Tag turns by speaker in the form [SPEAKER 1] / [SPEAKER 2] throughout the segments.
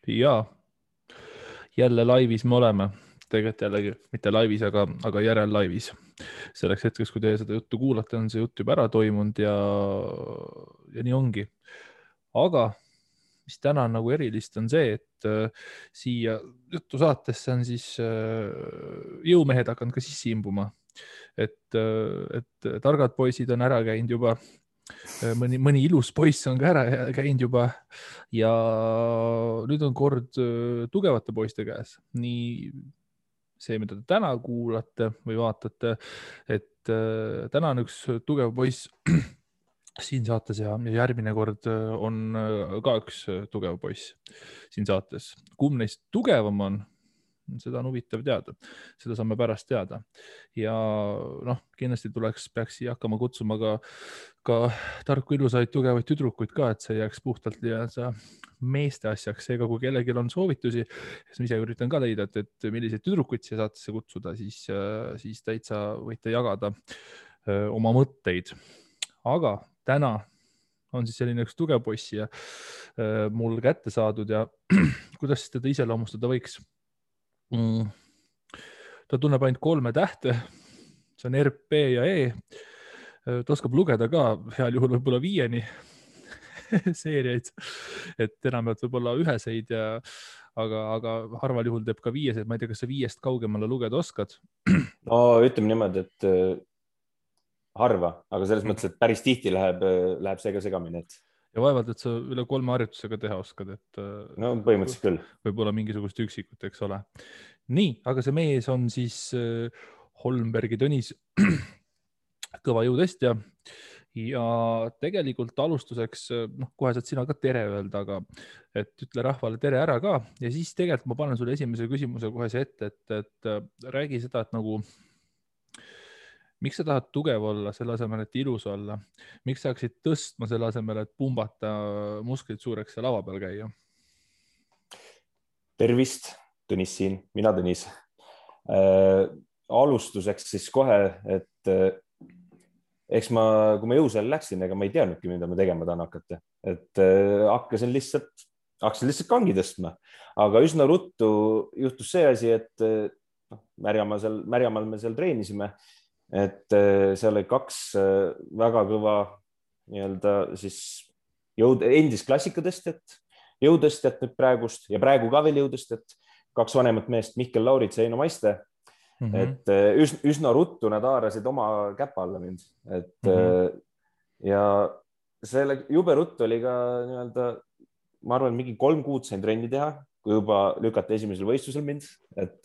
[SPEAKER 1] Ja jälle laivis me oleme. Tegelikult jällegi mitte laivis, aga järel laivis. Selleks hetkeks, kui teie seda juttu kuulate, on see jutt juba ära toimunud ja nii ongi. Aga mis täna on nagu erilist, on see, et siia juttu saatesse on siis jõumehed hakanud ka sisse imbuma. Et targad poisid on ära käinud juba. Mõni ilus poiss on ka ära käinud juba ja nüüd on kord tugevate poiste käes. Nii see, mida te täna kuulate või vaatate, et täna on üks tugev poiss siin saates ja järgmine kord on ka üks tugev poiss siin saates. Kumb neist tugevam on? Seda on huvitav teada, seda saame pärast teada ja kindlasti peaks siia hakkama kutsuma ka tarku ilusaid tugevaid tüdrukuid ka, et see jääks puhtalt meeste asjaks, seega kui kellelgi on soovitusi, siis ma ise üritan ka leida, et milliseid tüdrukuid siia saatesse kutsuda, siis täitsa võite jagada oma mõtteid, aga täna on siis selline üks tugev poiss ja mul kätte saadud ja kuidas teda iseloomustada võiks? Ta tunneb ainult 3 tähte, see on R, P ja E. Ta oskab lugeda ka heal juhul võib-olla 5-ni seeriaid, et enamalt võib-olla 1-seid, aga harval juhul teeb ka 5-seid. Ma ei tea, kas sa 5-st kaugemale lugeda oskad?
[SPEAKER 2] No ütleme niimoodi, et harva, aga selles mõttes, et päris tihti läheb see ka segamini.
[SPEAKER 1] Ja vaevalt, et sa üle 3 harjutusega teha oskad, et
[SPEAKER 2] no põhimõtteliselt küll.
[SPEAKER 1] Võib-olla mingisugust üksikut, eks ole. Nii, aga see mees on siis Holmbergi Tõnis kõva jõutestja ja tegelikult alustuseks, kohe saad sina ka tere öelda, aga et ütle rahvale tere ära ka ja siis tegelikult ma panen sulle esimese küsimuse kohe see ette, et räägi seda, et nagu miks sa tahad tugev olla selle asemel, et ilus olla? Miks sa hakkasid tõstma selle asemel, et pumbata musklid suureks ja lava peal käia?
[SPEAKER 2] Tervist, Tõnis siin, mina Tõnis. Alustuseks siis kohe, et eks kui ma jõusaali läksin, ega ma ei teadnudki, mida ma tegema tahan hakata. Et hakkasin lihtsalt kangi tõstma, aga üsna ruttu juhtus see asi, et Märjamaal me seal treenisime, et seal oli 2 väga kõva siis endist klassikatõstjat, jõutõstjat nüüd praegust ja praegu ka veel jõutõstjat, 2 vanemat meest, Mihkel Laurits ja Eino Maiste. Et üsna ruttu nad haarasid oma käpa alla mind, et ja selle jube ruttu oli ka ma arvan, mingi 3 kuud sain trenni teha, kui juba lükati esimesel võistlusel mind, et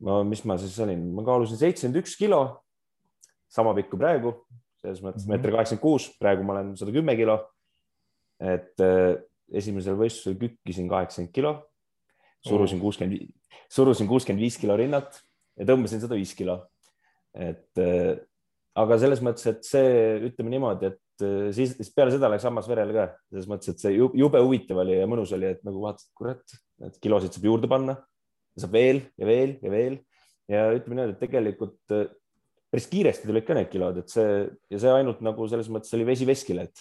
[SPEAKER 2] mis ma siis olin, ma kaalusin 71 kilo, sama pikk kui praegu, selles mõttes 1,86 m, praegu ma olen 110 kilo, et esimesel võistlusel kükkisin 80 kilo, surusin 65 kilo rinnat ja tõmbasin 105 kilo. Aga selles mõttes, et see, ütleme niimoodi, et siis peale seda läks hammas verele ka, selles mõttes, et see jube huvitav oli ja mõnus oli, et nagu vaatasid, kurat, et kilosid saab juurde panna, saab veel ja veel ja veel ja ütleme niimoodi, et tegelikult päris kiiresti tulid ka need kilod, et see ainult nagu selles mõttes oli vesi veskile, et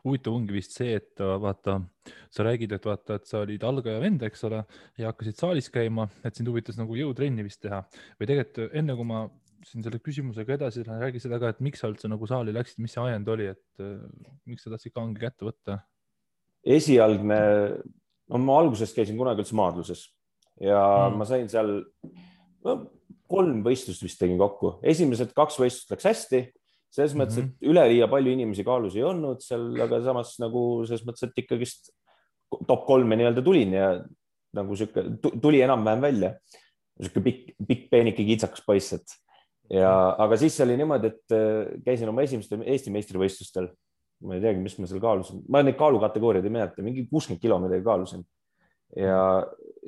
[SPEAKER 1] huvitav ongi vist see, et vaata, sa räägid, et vaata, et sa olid algaja vend, eks ole, ja hakkasid saalis käima, et sind huvitas nagu jõutrenni vist teha või tegelikult enne, kui ma siin selle küsimusega edasi räägi seda ka, et miks sa üldse nagu saali läksid, mis see ajend oli, et miks sa tahtsid kangi kätte võtta?
[SPEAKER 2] Esialgne, ma algusest käisin kunagi üldse maadluses ja ma sain seal 3 võistlust vist tegin kokku. Esimesed 2 võistlust läks hästi, selles mõttes, et üleliia palju inimesi kaalus ei olnud seal, aga samas nagu selles mõttes, et ikkagist top 3 nii-öelda tulin ja nagu tuli enam-vähem välja. Pikk peenike kitsakas poiss, aga siis oli niimoodi, et käisin oma esimestel Eesti meistrivõistlustel. Ma ei teagi, mis ma seal kaalusin. Ma neid kaalukategooriaid ei mäleta, mingi 60 kilo midagi kaalusin. Ja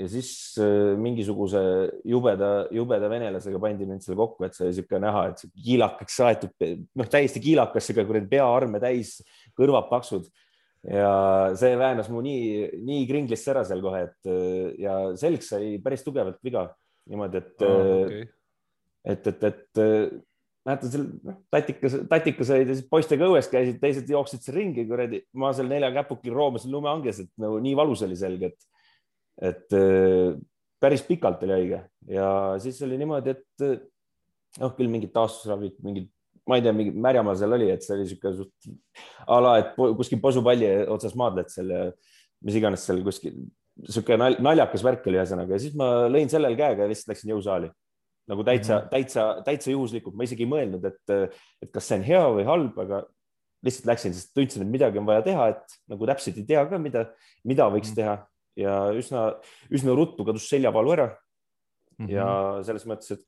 [SPEAKER 2] siis mingisuguse jubeda venelasega pandi mind selle kokku, et see oli siuke näha, et kiilakaks saetud, täiesti kiilakas, peaarme täis, kõrvad paksud ja see väänas mu nii kringlisse ära seal kohe, et ja selg sai päris tugevalt viga niimoodi, et mäletan seal tatikas olid ja siis poistega õues käisid, teised jooksid seal ringi, kuradi, ma seal 4 käpukil roomasin lumeanges, et nagu nii valus oli selge, et päris pikalt oli haige ja siis oli niimoodi, et küll mingid taastusravid, mingid, ma ei tea, mingi märjamaa seal oli, et see oli siuke suht ala, et kuskil posupalli otsas maadled seal ja mis iganes seal kuskil, siuke naljakas värk oli ühesõnaga ja siis ma lõin sellel käega ja lihtsalt läksin jõusaali. Nagu täitsa juhuslikult, ma isegi ei mõelnud, et kas see on hea või halb, aga lihtsalt läksin, sest tundsin, et midagi on vaja teha, et nagu täpselt ei tea ka, mida võiks teha ja üsna ruttu kadus seljavalu ära. Ja selles mõttes, et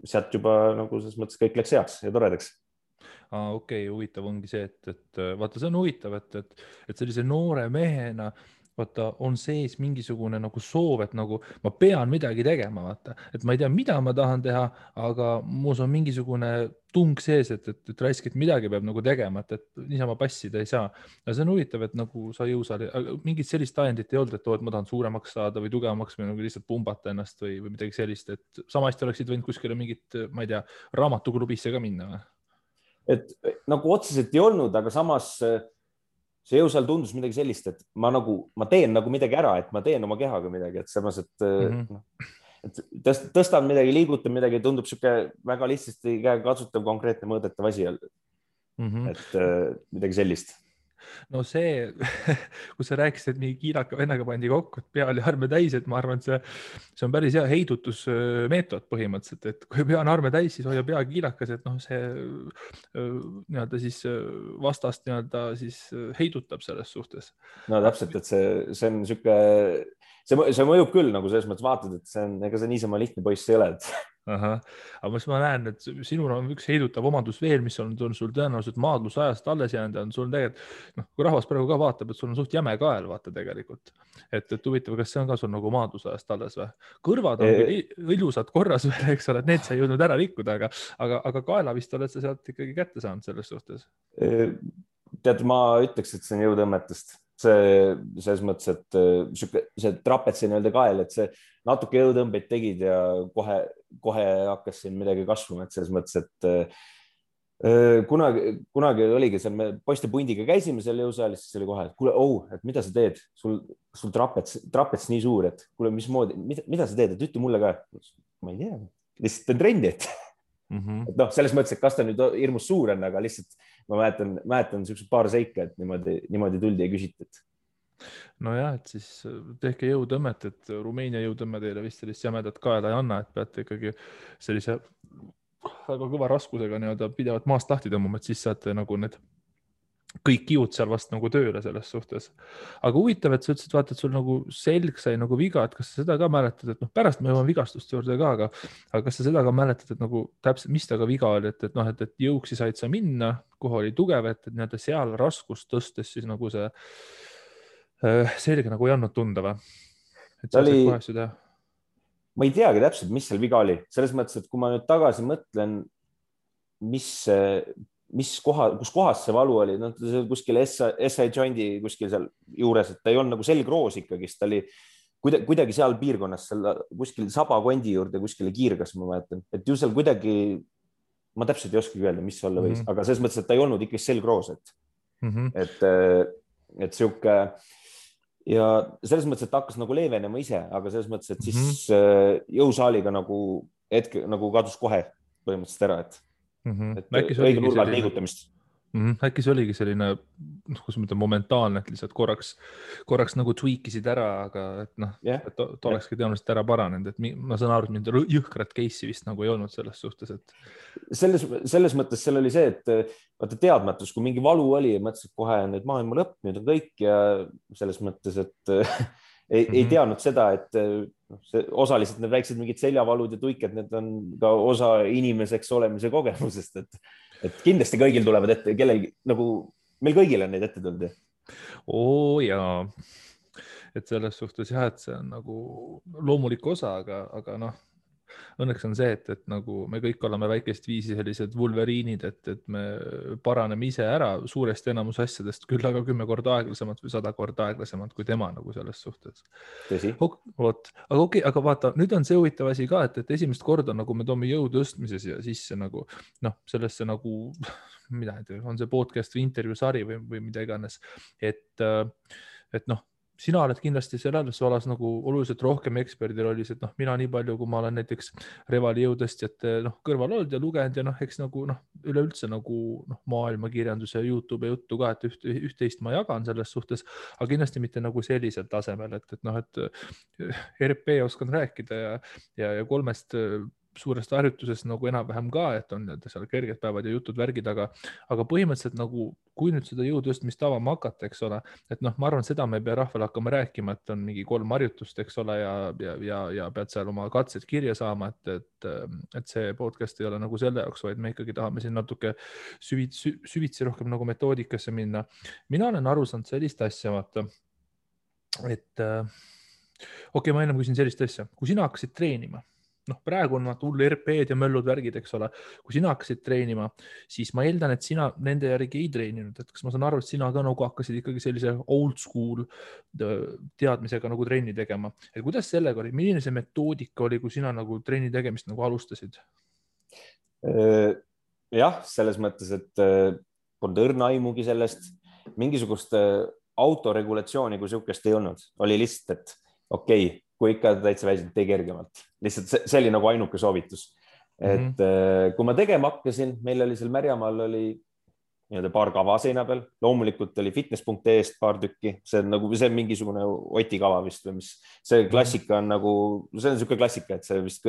[SPEAKER 2] sealt juba nagu selles mõttes kõik läks heaks ja toredaks.
[SPEAKER 1] Okei, huvitav ongi see, et vaata, see on huvitav, et sellise noore mehena vaata, on sees mingisugune nagu soov, et nagu ma pean midagi tegema, vaata, et ma ei tea, mida ma tahan teha, aga muus on mingisugune tung sees, et raisk, et midagi peab nagu tegema, et niisama passida ei saa. Ja see on huvitav, et nagu sa jõusaali, mingit sellist ajendit ei olnud, et ma tahan suuremaks saada või tugevamaks või nagu lihtsalt pumbata ennast või midagi sellist, et samasti oleksid võinud kuskile mingit, ma ei tea, raamatuklubisse ka minna või?
[SPEAKER 2] Et nagu otseselt ei olnud, aga samas see jõusaal tundus midagi sellist, et ma teen nagu midagi ära, et ma teen oma kehaga midagi, et samas, et tõstan midagi, liigutan midagi, tundub siuke väga lihtsasti käekatsutav, konkreetne mõõdetav asi. Et midagi sellist.
[SPEAKER 1] No see, kui sa rääkisid, et mingi kiilaka vennaga pandi kokku, et pea oli arme täis, et ma arvan, et see on päris hea heidutusmeetod põhimõtteliselt, et kui pea on arme täis, siis hoia pea kiilakas, et see nii-öelda siis vastast nii-öelda siis heidutab selles suhtes.
[SPEAKER 2] No täpselt, et see on siuke, see mõjub küll nagu selles mõttes vaatad, et see on, ega see niisama lihtne poiss ei ole,
[SPEAKER 1] Aga ma näen, et sinul on üks heidutav omandus veel, mis on sul tõenäoliselt maadlusajast alles jäänud ja on sul tegelikult, kui rahvas praegu ka vaatab, et sul on suht jäme kael, vaata tegelikult. Et huvitav, kas see on ka sul nagu maadlusajast alles või? Kõrvad on ilusad korras veel, eks ole, et need sa ei jõudnud ära rikkuda, aga kaela vist oled sa sealt ikkagi kätte saanud selles suhtes.
[SPEAKER 2] Tead, ma ütleks, et see on jõudõmmetest. Selles mõttes, et see trapetsi nii-öelda kael, et see natuke jõutõmbeid tegid ja kohe hakkas siin midagi kasvama, et selles mõttes, et kunagi oligi seal, me poiste pundiga käisime seal jõusaalis, siis oli kohe, et kuule, et mida sa teed, sul trapets nii suur, et kuule, mismoodi, mida sa teed, et ütle mulle ka. Ma ei tea, lihtsalt teen trendi, et selles mõttes, et kas ta nüüd hirmus suur on, aga lihtsalt ma mäletan niisugused paar seika, et niimoodi tuldi ja küsitud.
[SPEAKER 1] Nojah, et siis tehke jõutõmmet, et Rumeenia jõutõmme teile vist sellist jämedat kaela ei anna, et peate ikkagi sellise väga kõva raskusega nii-öelda pidevalt maast lahti tõmbama, et siis saate nagu need kõik kiud seal vast nagu tööle selles suhtes. Aga huvitav, et sa ütlesid, vaata, et sul nagu selg sai nagu viga, et kas sa seda ka mäletad, et pärast me jõuame vigastuste juurde ka, aga kas sa seda ka mäletad, et nagu täpselt, mis taga viga oli, et jõuksi said sa minna, kuhu oli tugev, et nii-öelda seal raskust tõstes siis nagu see selge nagu ei andnud tunda või? Et sa said kohe asju teha?
[SPEAKER 2] Ma ei teagi täpselt, mis seal viga oli. Selles mõttes, et kui ma nüüd tagasi mõtlen, kus kohas see valu oli, kuskil SI joindi kuskil seal juures, et ta ei olnud nagu selgroos ikkagist, ta oli kuidagi seal piirkonnas, kuskil sabakondi juurde kuskile kiirgas, ma mäletan, et ju seal kuidagi, ma täpselt ei oskagi öelda, mis olla võis, aga selles mõttes, et ta ei olnud ikkagi selgroos, et sihuke ja selles mõttes, et ta hakkas nagu leevenema ise, aga selles mõttes, et siis jõusaaliga nagu hetke nagu kadus kohe põhimõtteliselt ära, et õige nurga liigutamist.
[SPEAKER 1] Äkki see oligi selline, kus ma ütlen, momentaalne, et lihtsalt korraks nagu tweakisid ära, aga et ta olekski tõenäoliselt ära paranenud, et ma saan aru, et mind jõhkrat case'i vist nagu ei olnud selles suhtes, et
[SPEAKER 2] selles mõttes seal oli see, et vaata teadmatus, kui mingi valu oli, mõtlesin kohe nüüd maailma lõpp, nüüd on kõik ja selles mõttes, et ei teadnud seda, et osaliselt need väiksed mingid seljavalud ja tuiked, need on ka osa inimeseks olemise kogemusest, et kindlasti kõigil tulevad ette, kellelgi nagu meil kõigil on neid ette tulnud.
[SPEAKER 1] Jaa, et selles suhtes jah, et see on nagu loomulik osa, aga õnneks on see, et nagu me kõik oleme väikest viisi sellised vulveriinid, et me paraneme ise ära suuresti enamus asjadest, küll aga 10 korda aeglasemalt või 100 korda aeglasemalt kui tema nagu selles suhtes.
[SPEAKER 2] Tõsi.
[SPEAKER 1] Vot, aga okei, aga vaata, nüüd on see huvitav asi ka, et esimest korda nagu me toome jõu tõstmises ja sisse nagu sellesse nagu, mida ei tea, on see podcast või intervjuu sari või mida iganes, et sina oled kindlasti selles valas nagu oluliselt rohkem eksperdil oli see, et mina nii palju, kui ma olen näiteks Revali jõutõstjate kõrval olnud ja lugenud ja eks nagu üleüldse nagu maailmakirjanduse ja YouTube juttu ka, et üht-teist ma jagan selles suhtes, aga kindlasti mitte nagu sellisel tasemel, et RP oskan rääkida ja 3 suurest harjutusest nagu enam-vähem ka, et on seal kerged päevad ja jutud värgid, aga põhimõtteliselt nagu, kui nüüd seda jõutõstmist avama hakata, eks ole, et ma arvan, seda me ei pea rahvale hakkama rääkima, et on mingi 3 harjutust, eks ole, ja pead seal oma katsed kirja saama, et see podcast ei ole nagu selle jaoks, vaid me ikkagi tahame siin natuke süvitsi rohkem nagu metoodikasse minna. Mina olen aru saanud sellist asja, vaata, et okei, ma ennem küsin sellist asja, kui sina hakkasid treenima, praegu on hull RP-d ja möllud värgid, eks ole. Kui sina hakkasid treenima, siis ma eeldan, et sina nende järgi ei treeninud. Et kas ma saan aru, et sina ka nagu hakkasid ikkagi sellise old school teadmisega nagu trenni tegema. Et kuidas sellega oli? Milline see metoodika oli, kui sina nagu trenni tegemist nagu alustasid?
[SPEAKER 2] Jah, selles mõttes, et polnud õrna aimugi sellest. Mingisugust autoregulatsiooni kui sihukest ei olnud. Oli lihtsalt, et okei, kui ikka täitsa väisid, tee kergemalt. Lihtsalt see oli nagu ainuke soovitus. Et kui ma tegema hakkasin, meil oli seal Märjamaal oli paar kava seina peal. Loomulikult oli fitness.ee-st paar tükki. See on nagu see mingisugune Oti kava vist või mis. See klassika on nagu, see on niisugune klassika, et see vist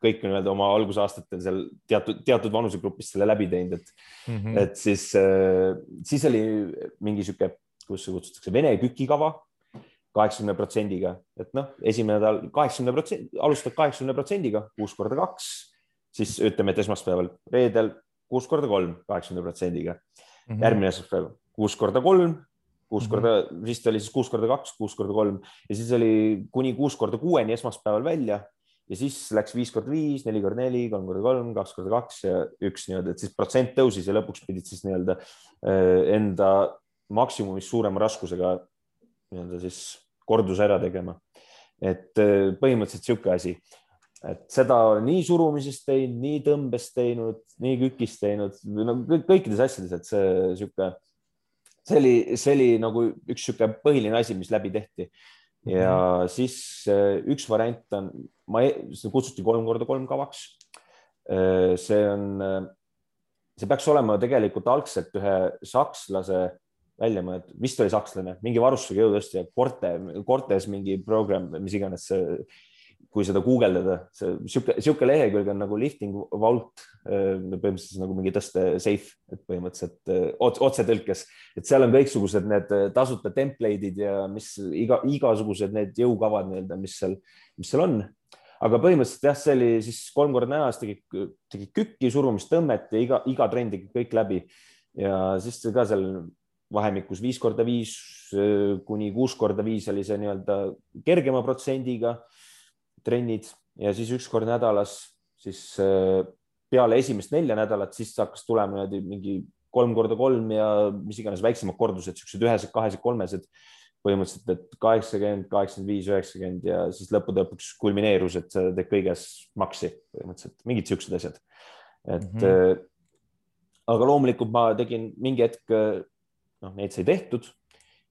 [SPEAKER 2] kõik on oma algusaastatel seal teatud vanusegrupist selle läbi teinud. Et siis oli mingi niisugune, kus see kutsutakse Vene kükikava 80%-ga, et esimene nädal 80%, alustad 80%-ga 6 korda 2, siis ütleme, et esmaspäeval, reedel 6 korda 3, 80%-ga. Järgmine esmaspäev 6 korda 3, 6 korda, vist oli siis 6 korda 2, 6 korda 3 ja siis oli kuni 6 korda 6-ni esmaspäeval välja ja siis läks 5 korda 5, 4 korda 4, 3 korda 3, 2 korda 2 ja 1 nii-öelda, et siis protsent tõusis ja lõpuks pidid siis nii-öelda enda maksimumist suurema raskusega nii-öelda siis korduse ära tegema. Et põhimõtteliselt sihuke asi, et seda nii surumisest teinud, nii tõmbest teinud, nii kükist teinud, kõikides asjades, et see oli nagu üks sihuke põhiline asi, mis läbi tehti. Ja siis üks variant on, see kutsuti 3 korda 3 kavaks. See peaks olema tegelikult algselt ühe sakslase välja mõelda, vist oli sakslane, mingi varustusega jõutõstja, Cortes mingi program, mis iganes, kui seda guugeldada, sihuke lehekülg on nagu lifting vault, põhimõtteliselt nagu mingi tõste safe, et põhimõtteliselt otsetõlkes, et seal on kõiksugused need tasuta template'id ja mis igasugused need jõukavad, mis seal on. Aga põhimõtteliselt jah, see oli siis 3 korda nädalas tegi kükki, surumist, tõmmet ja iga trenn tegi kõik läbi ja siis ka seal vahemikus 5 korda 5 kuni 6 korda 5 oli see nii-öelda kergema protsendiga trennid ja siis 1 kord nädalas, siis peale esimest 4 nädalat, siis hakkas tulema mingi 3 korda 3 ja mis iganes väiksemad kordused, siuksed 1-sed, 2-sed, 3-sed, põhimõtteliselt, et 80, 85, 90 ja siis lõppude lõpuks kulmineerus, et see teeb kõiges maksi, põhimõtteliselt mingid siuksed asjad. Et aga loomulikult ma tegin mingi hetk neid sai tehtud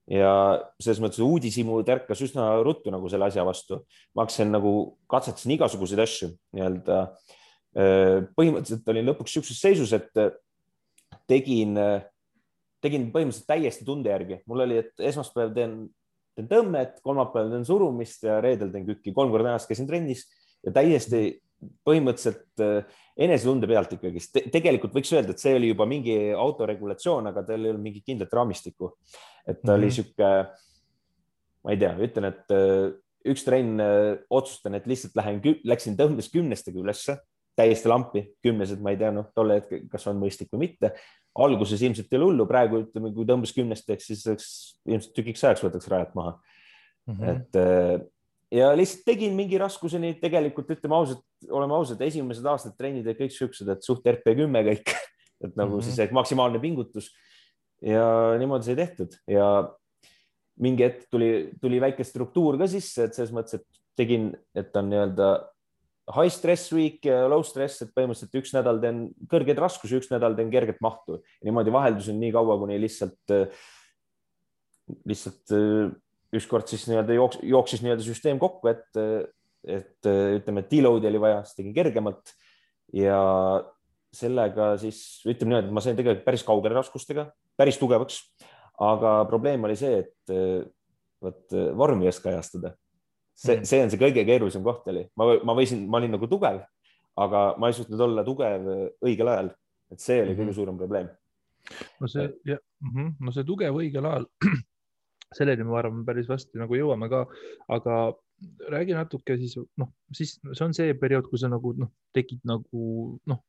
[SPEAKER 2] ja selles mõttes uudishimu tärkas üsna ruttu nagu selle asja vastu. Ma hakkasin nagu katsetasin igasuguseid asju nii-öelda. Põhimõtteliselt olin lõpuks siukses seisus, et tegin põhimõtteliselt täiesti tunde järgi. Mul oli, et esmaspäev teen tõmmet, kolmapäev teen surumist ja reedel teen kükki. 3 korda nädalas käisin trennis ja täiesti põhimõtteliselt enesetunde pealt ikkagi. Tegelikult võiks öelda, et see oli juba mingi autoregulatsioon, aga tal ei olnud mingit kindlat raamistikku. Et ta oli siuke, ma ei tea, ütlen, et üks trenn otsustan, et lihtsalt läksin tõmbes 10-stega ülesse, täiesti lampi, 10-sed, ma ei tea, tolle hetke, kas on mõistlik või mitte. Alguses ilmselt ei ole hullu, praegu ütleme, kui tõmbes 10-steks, siis ilmselt tükiks ajaks võtaks rajat maha. Et ja lihtsalt tegin mingi raskuseni, tegelikult ütleme ausalt, oleme ausad, esimesed aastad trennid olid kõik siuksed, et suht RP10 kõik, et nagu siis maksimaalne pingutus ja niimoodi sai tehtud ja mingi hetk tuli väike struktuur ka sisse, et selles mõttes, et tegin, et on nii-öelda high stress week ja low stress, et põhimõtteliselt üks nädal teen kõrgeid raskusi, üks nädal teen kerget mahtu ja niimoodi vaheldusin nii kaua, kuni lihtsalt ükskord siis nii-öelda jooksis nii-öelda süsteem kokku, et ütleme, et deload'i oli vaja, siis tegin kergemalt ja sellega siis ütleme nii, et ma sain tegelikult päris kaugele raskustega, päris tugevaks, aga probleem oli see, et vormi ei oska ajastada. See on see kõige keerulisem koht oli. Ma olin nagu tugev, aga ma ei suutnud olla tugev õigel ajal. Et see oli kõige suurem probleem.
[SPEAKER 1] No see tugev õigel ajal, selleni ma arvan päris vasti nagu jõuame ka, aga räägi natuke siis, siis see on see periood, kui sa nagu tegid nagu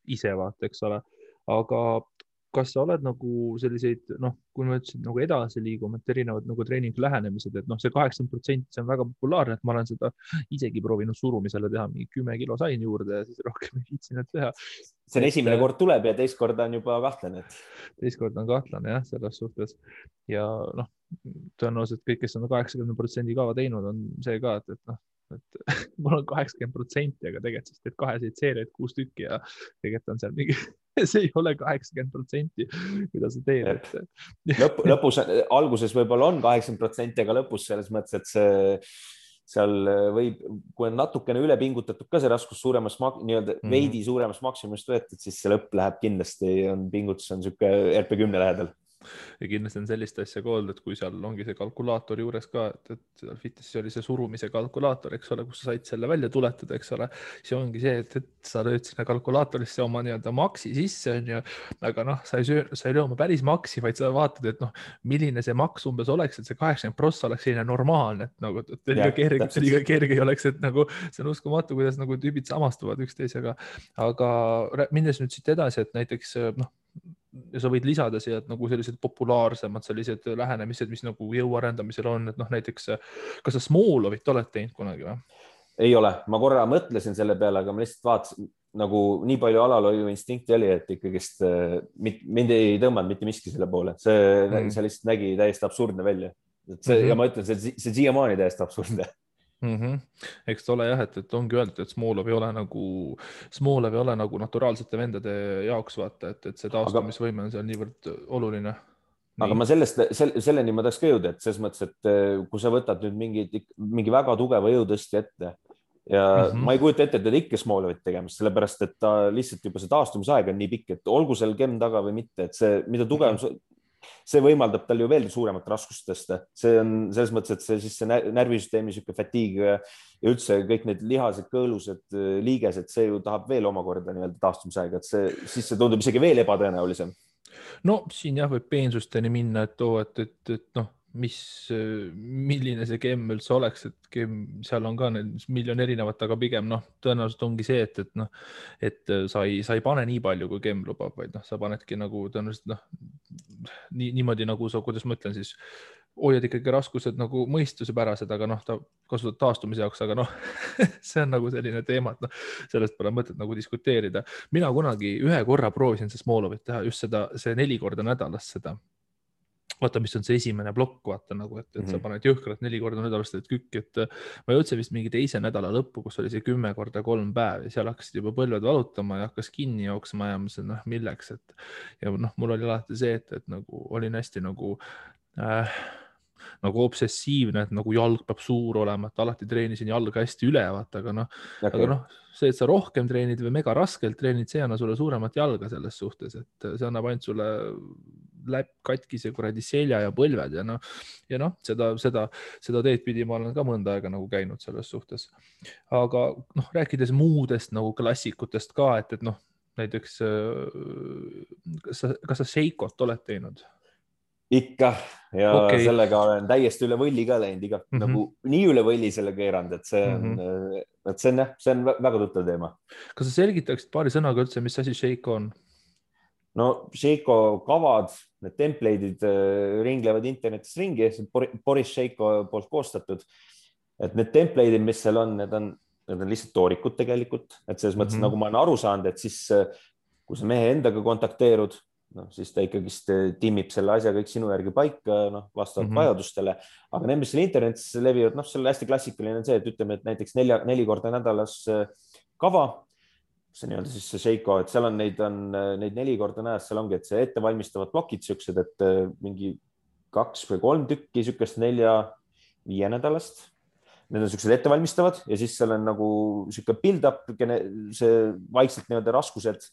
[SPEAKER 1] ise vaata, eks ole, aga kas sa oled nagu selliseid, kui ma ütlesin nagu edasi liigume, et erinevad nagu treeningu lähenemised, et see 80%, see on väga populaarne, et ma olen seda isegi proovinud surumisele teha, mingi 10 kilo sain juurde ja siis rohkem ei viitsinud teha.
[SPEAKER 2] See on esimene kord tuleb ja teist korda on juba kahtlane.
[SPEAKER 1] Teist korda on kahtlane jah, selles suhtes ja tõenäoliselt kõik, kes on 80% kava teinud, on see ka, et mul on 80%, aga tegelikult siis teed 2 seeriaid 6 tükki ja tegelikult on seal mingi, see ei ole 80%, mida sa teed.
[SPEAKER 2] Lõpus, alguses võib-olla on 80%, aga lõpus selles mõttes, et seal võib, kui on natukene üle pingutatud ka see raskus suuremas, nii-öelda veidi suuremast maksimumist võetud, siis see lõpp läheb kindlasti, pingutus on siuke RP10 lähedal.
[SPEAKER 1] Ja kindlasti on sellist asja ka olnud, et kui seal ongi see kalkulaator juures ka, et fitnessis oli see surumise kalkulaator, eks ole, kus sa said selle välja tuletada, eks ole, siis ongi see, et sa lööd sinna kalkulaatorisse oma nii-öelda maksi sisse, aga sa ei löö oma päris maksi, vaid sa vaatad, et milline see maks umbes oleks, et see 80% oleks selline normaalne, et nagu liiga kerge ei oleks, et nagu see on uskumatu, kuidas nagu tüübid samastuvad üksteisega, aga minnes nüüd siit edasi, et näiteks ja sa võid lisada siia nagu sellised populaarsemad sellised lähenemised, mis nagu jõuarendamisel on, et näiteks, kas sa Smolovit oled teinud kunagi või?
[SPEAKER 2] Ei ole, ma korra mõtlesin selle peale, aga ma lihtsalt vaatasin, nagu nii palju alalhoiu instinkti oli, et ikkagist mind ei tõmmanud mitte miski selle poole. See lihtsalt nägi täiesti absurdne välja. Ja ma ütlen, see siiamaani täiesti absurdne.
[SPEAKER 1] Eks ta ole jah, et ongi öeldud, et Smolov ei ole nagu naturaalsete vendade jaoks vaata, et see taastumisvõime on seal niivõrd oluline.
[SPEAKER 2] Aga ma selleni ma tahaks ka jõuda, et selles mõttes, et kui sa võtad nüüd mingi väga tugeva jõutõsti ette ja ma ei kujuta ette, et ikka Smolovit tegemist, sellepärast, et ta lihtsalt juba see taastumisaeg on nii pikk, et olgu seal kemm taga või mitte, et see, mida tugev see võimaldab tal ju veel suuremat raskust tõsta. See on selles mõttes, et see närvisüsteemi siuke fatiig ja üldse kõik need lihased, kõõlused, liigesed, see ju tahab veel omakorda nii-öelda taastumisaega, et siis see tundub isegi veel ebatõenäolisem.
[SPEAKER 1] No siin jah võib peensusteni minna, et milline see kemm üldse oleks, et seal on ka miljon erinevat, aga pigem tõenäoliselt ongi see, et sa ei pane nii palju, kui kemm lubab, vaid sa panedki nagu tõenäoliselt niimoodi nagu sa, kuidas ma ütlen siis, hoiad ikkagi raskused nagu mõistusepärased, aga ta kasutad taastumise jaoks, aga see on nagu selline teema, et sellest pole mõtet nagu diskuteerida. Mina kunagi ühe korra proovisin see Smolovit teha, just see 4 korda nädalas seda. Vaata, mis on see esimene plokk, vaata nagu, et sa paned jõhkralt 4 korda nädalast kükk, et ma jõudsin vist mingi teise nädala lõppu, kus oli see 10 korda 3 päev ja seal hakkasid juba põlved valutama ja hakkas kinni jooksma ja mõtlesin, milleks, ja mul oli alati see, et nagu olin hästi nagu obsessiivne, et nagu jalg peab suur olema, et alati treenisin jalga hästi üle, vaata, aga see, et sa rohkem treenid või mega raskelt treenid, see anna sulle suuremat jalga selles suhtes, et see annab ainult sulle katkise kuradi selja ja põlved ja seda teed pidi ma olen ka mõnda aega nagu käinud selles suhtes. Aga rääkides muudest nagu klassikutest ka, et näiteks kas sa Sheikot oled teinud?
[SPEAKER 2] Ikka ja sellega olen täiesti üle võlli ka läinud, nagu nii üle võlli selle keeranud, et see on väga tuttav teema.
[SPEAKER 1] Kas sa selgitaksid paari sõnaga üldse, mis asi Sheiko on?
[SPEAKER 2] No Sheiko kavad, need template'id ringlevad internetis ringi, Boris Sheiko poolt koostatud, et need template'id, mis seal on, need on need on lihtsalt toorikud tegelikult, et selles mõttes nagu ma olen aru saanud, et siis kui sa mehe endaga kontakteerud, siis ta ikkagist timmib selle asja kõik sinu järgi paika, vastavalt vajadustele, aga need, mis seal internetis levivad, see on hästi klassikaline on see, et ütleme, et näiteks 4 korda nädalas kava, see nii-öelda siis see Seiko, et seal on neid 4 korda nädalas, seal ongi, et see ettevalmistavad plokid siuksed, et mingi 2 või 3 tükki siukest 4-5 nädalast. Need on siuksed ettevalmistavad ja siis seal on nagu siuke build-up, see vaikselt nii-öelda raskused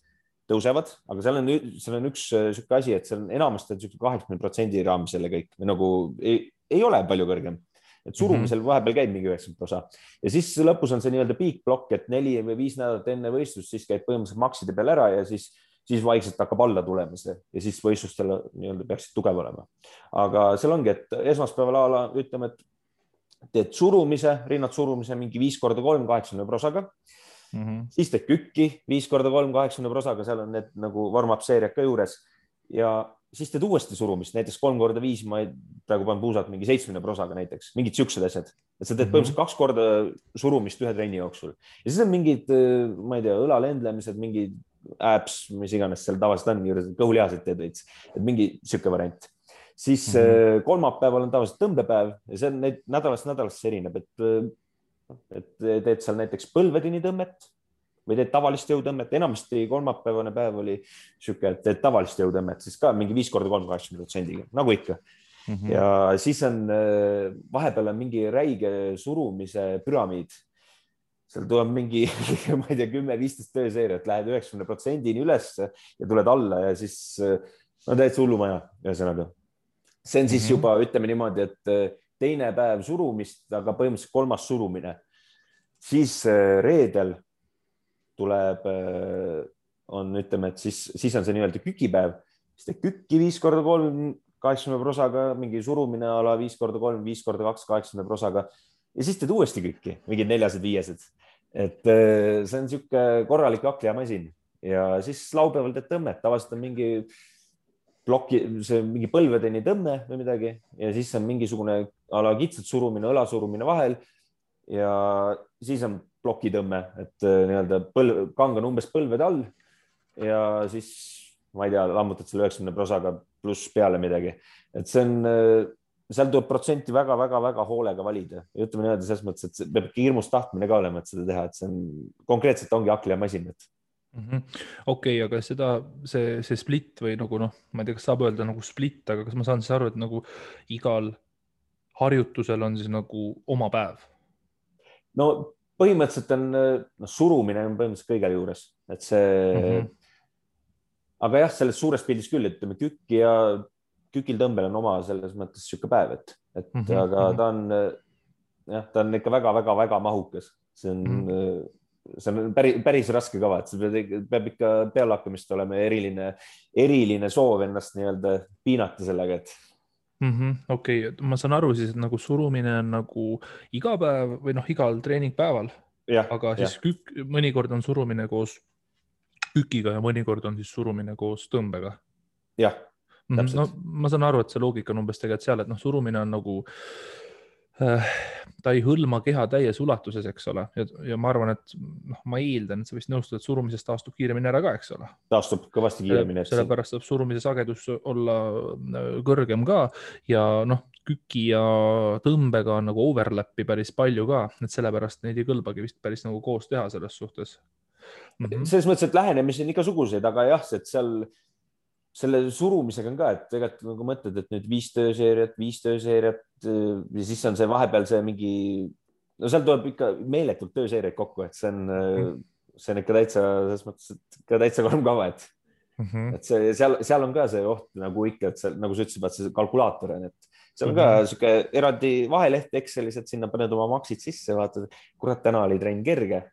[SPEAKER 2] tõusevad, aga seal on üks siuke asi, et seal on enamasti 80% raames selle kõik või nagu ei ole palju kõrgem. Et surumisel vahepeal käib mingi 90%. Ja siis lõpus on see nii-öelda piikblokk, et 4 või 5 nädalat enne võistlust, siis käib põhimõtteliselt makside peal ära ja siis vaikselt hakkab alla tulema see ja siis võistlustel nii-öelda peaksid tugev olema. Aga seal ongi, et esmaspäeval ütleme, et teed surumise, rinnad surumise mingi 5x3 80 prosaga. Siis teed kükki 5x3 80 prosaga, seal on need nagu warm-up seeriad ka juures ja siis teed uuesti surumist, näiteks 3x5, ma praegu panen puusalt mingi 70 prosaga näiteks, mingid siuksed asjad, et sa teed põhimõtteliselt 2 korda surumist ühe trenni jooksul ja siis on mingid, ma ei tea, õlalendlemised, mingid abs, mis iganes seal tavaliselt on juures, kõhulihasid teed veits, et mingi siuke variant. Siis kolmapäeval on tavaliselt tõmbepäev ja see on nädalast erineb, et teed seal näiteks põlvedeni tõmmet või teed tavalist jõutõmmet, enamasti kolmapäevane päev oli siuke, et teed tavalist jõutõmmet, siis ka mingi 5x3 80%, nagu ikka. Ja siis on vahepeal on mingi räige surumise püramiid. Seal tuleb mingi, ma ei tea, 10-15 tööseeriat, lähed 90%-ni üles ja tuled alla ja siis täitsa hullumaja, ühesõnaga. See on siis juba, ütleme niimoodi, et teine päev surumist, aga põhimõtteliselt 3. surumine. Siis reedel tuleb, ütleme, et siis on see nii-öelda kükipäev, siis teed kükki 5x3 80 prosaga, mingi surumine ala 5x3, 5x2 80 prosaga ja siis teed uuesti kükki, mingid 4-5. Et see on siuke korralik hakklijamasin ja siis laupäeval teed tõmmet, tavaliselt on mingi ploki, see mingi põlvedeni tõmme või midagi ja siis on mingisugune ala kitsalt surumine, õlasurumine vahel ja siis on plokitõmme, et nii-öelda kang on umbes põlvede all ja siis, ma ei tea, lammutad selle 90 prosaga pluss peale midagi. Et see on, seal tuleb protsenti väga hoolega valida. Ja ütleme nii-öelda selles mõttes, et peab hirmus tahtmine ka olema, et seda teha, et see on konkreetselt ongi hakklijamasin.
[SPEAKER 1] Okei, aga see split või nagu ma ei tea, kas saab öelda nagu split, aga kas ma saan siis aru, et nagu igal harjutusel on siis nagu oma päev? No
[SPEAKER 2] põhimõtteliselt on, surumine on põhimõtteliselt kõigel juures, et see, aga jah, selles suures pildis küll, et kükki ja kükil tõmbel on oma selles mõttes siuke päev, aga ta on ikka väga mahukas. See on päris raske kava, et see peab ikka pealehakkamist olema eriline soov ennast nii-öelda piinata sellega, et
[SPEAKER 1] Okei, ma saan aru siis, et nagu surumine on nagu iga päev või igal treeningpäeval, aga siis mõnikord on surumine koos kükiga ja mõnikord on siis surumine koos tõmbega.
[SPEAKER 2] Jah, täpselt.
[SPEAKER 1] Ma saan aru, et see loogika on umbes tegelikult seal, et surumine on nagu, ta ei hõlma keha täies ulatuses, eks ole. Ja ma arvan, et ma eeldan, et sa vist nõustud, et surumisest taastub kiiremini ära ka, eks ole.
[SPEAKER 2] Taastub kõvasti kiiremini.
[SPEAKER 1] Sellepärast saab surumise sagedus olla kõrgem ka ja küki ja tõmbega on nagu overlappi päris palju ka, et sellepärast neid ei kõlbagi vist päris nagu koos teha selles suhtes.
[SPEAKER 2] Selles mõttes, et lähenemisi on igasuguseid, aga jah, et seal selle surumisega on ka, et tegelikult nagu mõtled, et nüüd 5 tööseeriat ja siis on see vahepeal see mingi, seal tuleb ikka meeletult tööseeriaid kokku, et see on ikka täitsa, selles mõttes, et ka täitsa karm kava, et seal on ka see oht nagu ikka, et seal, nagu sa ütlesid, et see kalkulaator on, et seal on ka siuke eraldi vaheleht Excelis, et sinna paned oma maksid sisse, vaatad, kurat, täna oli trenn kerge,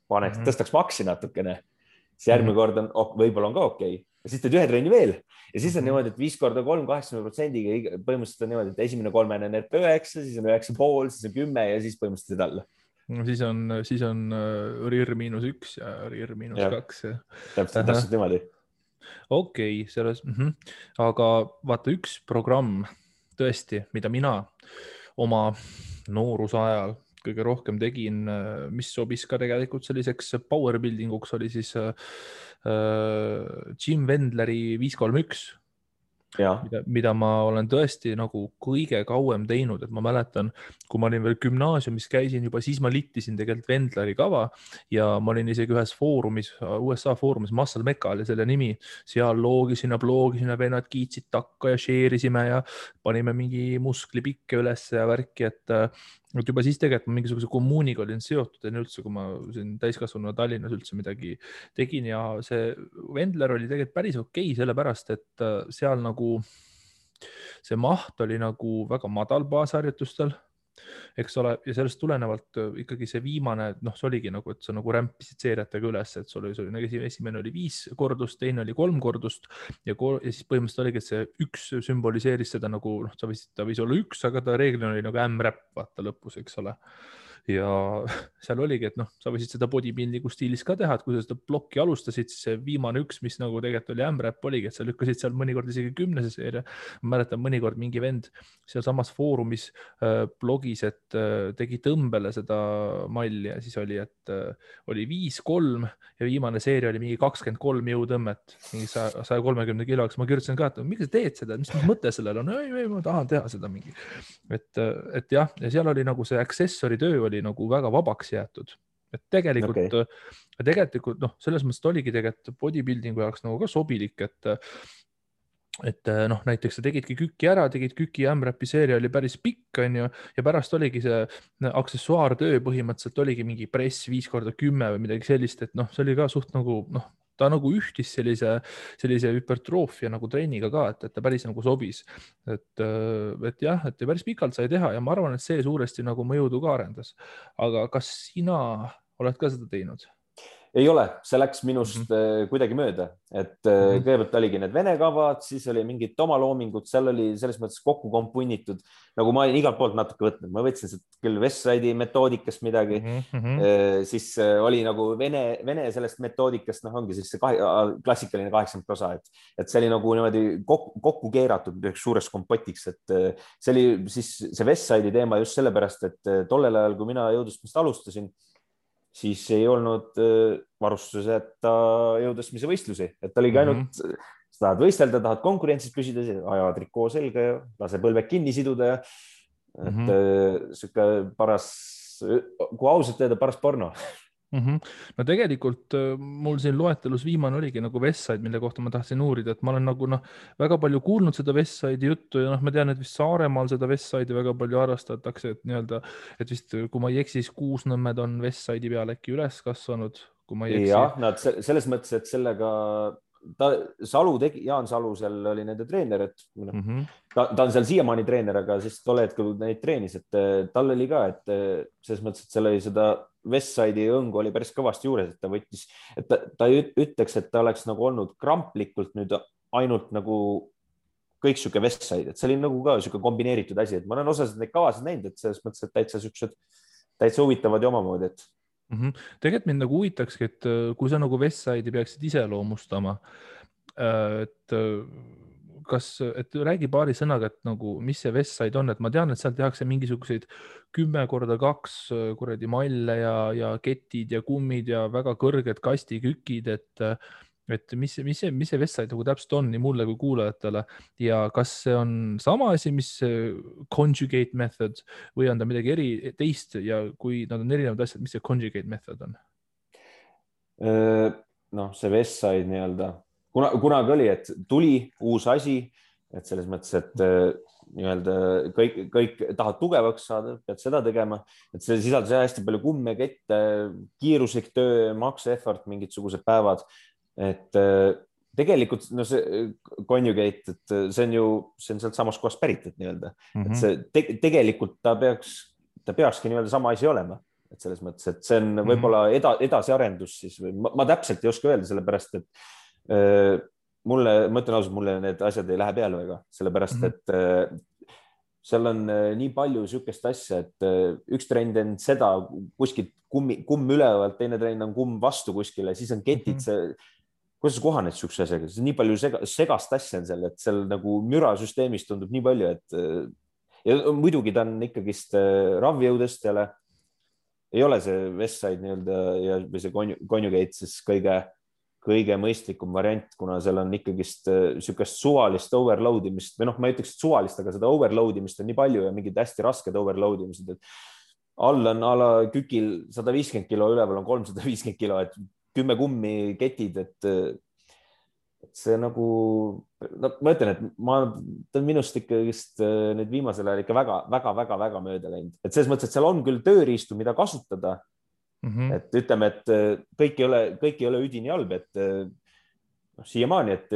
[SPEAKER 2] tõstaks maksi natukene, siis järgmine kord on, võib-olla on ka okei. Ja siis teed ühe trenni veel ja siis on niimoodi, et 5x3 80%-ga põhimõtteliselt on niimoodi, et esimene 3 on RP9, siis on 9,5, siis on 10 ja siis põhimõtteliselt alla.
[SPEAKER 1] Siis on RIR-1 ja RIR-2.
[SPEAKER 2] Täpselt niimoodi.
[SPEAKER 1] Okei, selles, aga vaata üks programm tõesti, mida mina oma nooruse ajal kõige rohkem tegin, mis sobis ka tegelikult selliseks power building uks, oli siis Jim Wendleri 531,
[SPEAKER 2] ja,
[SPEAKER 1] mida ma olen tõesti nagu kõige kauem teinud, et ma mäletan, kui ma olin veel gümnaasiumis, käisin juba, siis ma littisin tegelikult Wendleri kava ja ma olin isegi ühes foorumis, USA foorumis, Muscle Mecca oli selle nimi, seal loogisime, vennad kiitsid takka ja share isime ja panime mingi musklipikke üles ja värki, et juba siis tegelikult ma mingisuguse kommuuniga olin seotud enne üldse, kui ma siin täiskasvanu Tallinnas üldse midagi tegin ja see Wendler oli tegelikult päris okei, sellepärast et seal nagu see maht oli nagu väga madal baasharjutustel, eks ole, ja sellest tulenevalt ikkagi see viimane, noh, see oligi nagu, et sa nagu rämpisid seeriatega üles, et sul oli nagu esimene oli 5 kordust, teine oli 3 kordust ja siis põhimõtteliselt oligi, et see 1 sümboliseeris seda nagu, noh, ta võis olla 1, aga ta reeglina oli nagu M-räpp, vaata lõpus, eks ole. Ja seal oligi, et noh, sa võisid seda bodybuildingu stiilis ka teha, et kui sa seda plokki alustasid, siis see viimane 1, mis nagu tegelikult oli M-räpp oligi, et sa lükkasid seal mõnikord isegi 10. seeria. Ma mäletan mõnikord mingi vend seal samas foorumis blogis, et tegi tõmbele seda malli ja siis oli, et oli 5-3 ja viimane seeria oli mingi 23 jõutõmmet, mingi 130 kiloks. Ma kirjutasin ka, et miks sa teed seda, mis mõte sellel on? Ei, ma tahan teha seda mingi. Et jah, ja seal oli nagu see accessory töö oli nagu väga vabaks jäetud. Et tegelikult noh, selles mõttes oligi tegelikult bodybuildingu jaoks nagu ka sobilik, et noh, näiteks sa tegidki küki ära, tegid küki ja M-räpi seeria oli päris pikk, on ju, ja pärast oligi see aksessuaartöö põhimõtteliselt oligi mingi press 5x10 või midagi sellist, et noh, see oli ka suht nagu noh, ta nagu ühtis sellise hüpertroofia nagu treeniga ka, et ta päris nagu sobis. Et jah, et päris pikalt sai teha ja ma arvan, et see suuresti nagu mõjudu ka arendas. Aga kas sina oled ka seda teinud?
[SPEAKER 2] ei ole, see läks minust kuidagi mööda, et kõigepealt oligi need vene kavad, siis oli mingid oma loomingud, seal oli selles mõttes kokku kompunnitud, nagu ma olin igalt poolt natuke võtnud, ma võtsin küll Westside'i metoodikast midagi, siis oli nagu vene sellest metoodikast, noh, ongi siis see klassikaline 80%, et see oli nagu niimoodi kokku keeratud üheks suureks kompotiks, et see oli siis see Westside'i teema just sellepärast, et tollel ajal, kui mina jõudlustamist alustasin, siis ei olnud varustuseta jõudlusmise võistlusi, et oligi ainult, sa tahad võistelda, tahad konkurentsis püsida, aja trikoo selga ja lase põlved kinni siduda ja et sihuke paras, kui ausalt öelda, paras porno.
[SPEAKER 1] No tegelikult mul siin loetelus viimane oligi nagu Westside, mille kohta ma tahtsin uurida, et ma olen nagu väga palju kuulnud seda Westside'i juttu ja ma tean, et vist Saaremaal seda Westside'i väga palju harrastatakse, et nii-öelda, et vist kui ma ei eksi, siis Kuusnõmmed on Westside'i peal äkki üles kasvanud, kui ma ei eksi.
[SPEAKER 2] jah, nad selles mõttes, et sellega Jaan Salu seal oli nende treener, et ta on seal siiamaani treener, aga siis tol hetkel neid treenis, et tal oli ka, et selles mõttes, et seal oli seda Westside'i õngu oli päris kõvasti juures, et ta võttis, et ta ei ütleks, et ta oleks nagu olnud kramplikult nüüd ainult nagu kõik sihuke Westside, et see oli nagu ka sihuke kombineeritud asi, et ma olen osasid neid kavasid näinud, et selles mõttes, et täitsa huvitavad ja omamoodi, et
[SPEAKER 1] tegelikult mind nagu huvitakski, et kui sa nagu Westside'i peaksid iseloomustama, et räägi paari sõnaga, et nagu, mis see Westside on, et ma tean, et seal tehakse mingisuguseid 10x2 kuradi malle ja ketid ja kummid ja väga kõrged kastikükid, et mis see Westside nagu täpselt on nii mulle kui kuulajatele ja kas see on sama asi, mis conjugate method või on ta midagi teist ja kui nad on erinevad asjad, mis see conjugate method on?
[SPEAKER 2] noh, see Westside nii-öelda, kunagi oli, et tuli uus asi, et selles mõttes, et nii-öelda kõik tahad tugevaks saada, pead seda tegema, et see sisaldas hästi palju kumme, kette, kiiruslik töö, max effort, mingisugused päevad. Et tegelikult no see conjugate, et see on sealt samast kohast pärit, et nii-öelda, et see tegelikult ta peakski nii-öelda sama asi olema, et selles mõttes, et see on võib-olla edasiarendus siis või ma täpselt ei oska öelda, sellepärast, et ma ütlen ausalt, mulle need asjad ei lähe peale väga, sellepärast, et seal on nii palju sihukest asja, et üks trend on seda kuskilt kumm ülevalt, teine trend on kumm vastu kuskile, siis on ketid, kuidas sa kohaned sihukese asjaga, nii palju segast asja on seal, et seal nagu mürasüsteemis tundub nii palju, et ja muidugi ta on ikkagist ravjõudestjale, ei ole see Westside nii-öelda ja või see Conjugate siis kõige mõistlikum variant, kuna seal on ikkagist niisugust suvalist overload imist või noh, ma ei ütleks, et suvalist, aga seda overload imist on nii palju ja mingid hästi rasked overload imised, et all on a la kükil 150 kilo, üleval on 350 kilo, et 10 kummi ketid, et see nagu, no ma ütlen, et ta on minust ikkagist nüüd viimasel ajal ikka väga mööda läinud, et selles mõttes, et seal on küll tööriistu, mida kasutada. Et ütleme, et kõik ei ole üdini halb, et siiamaani, et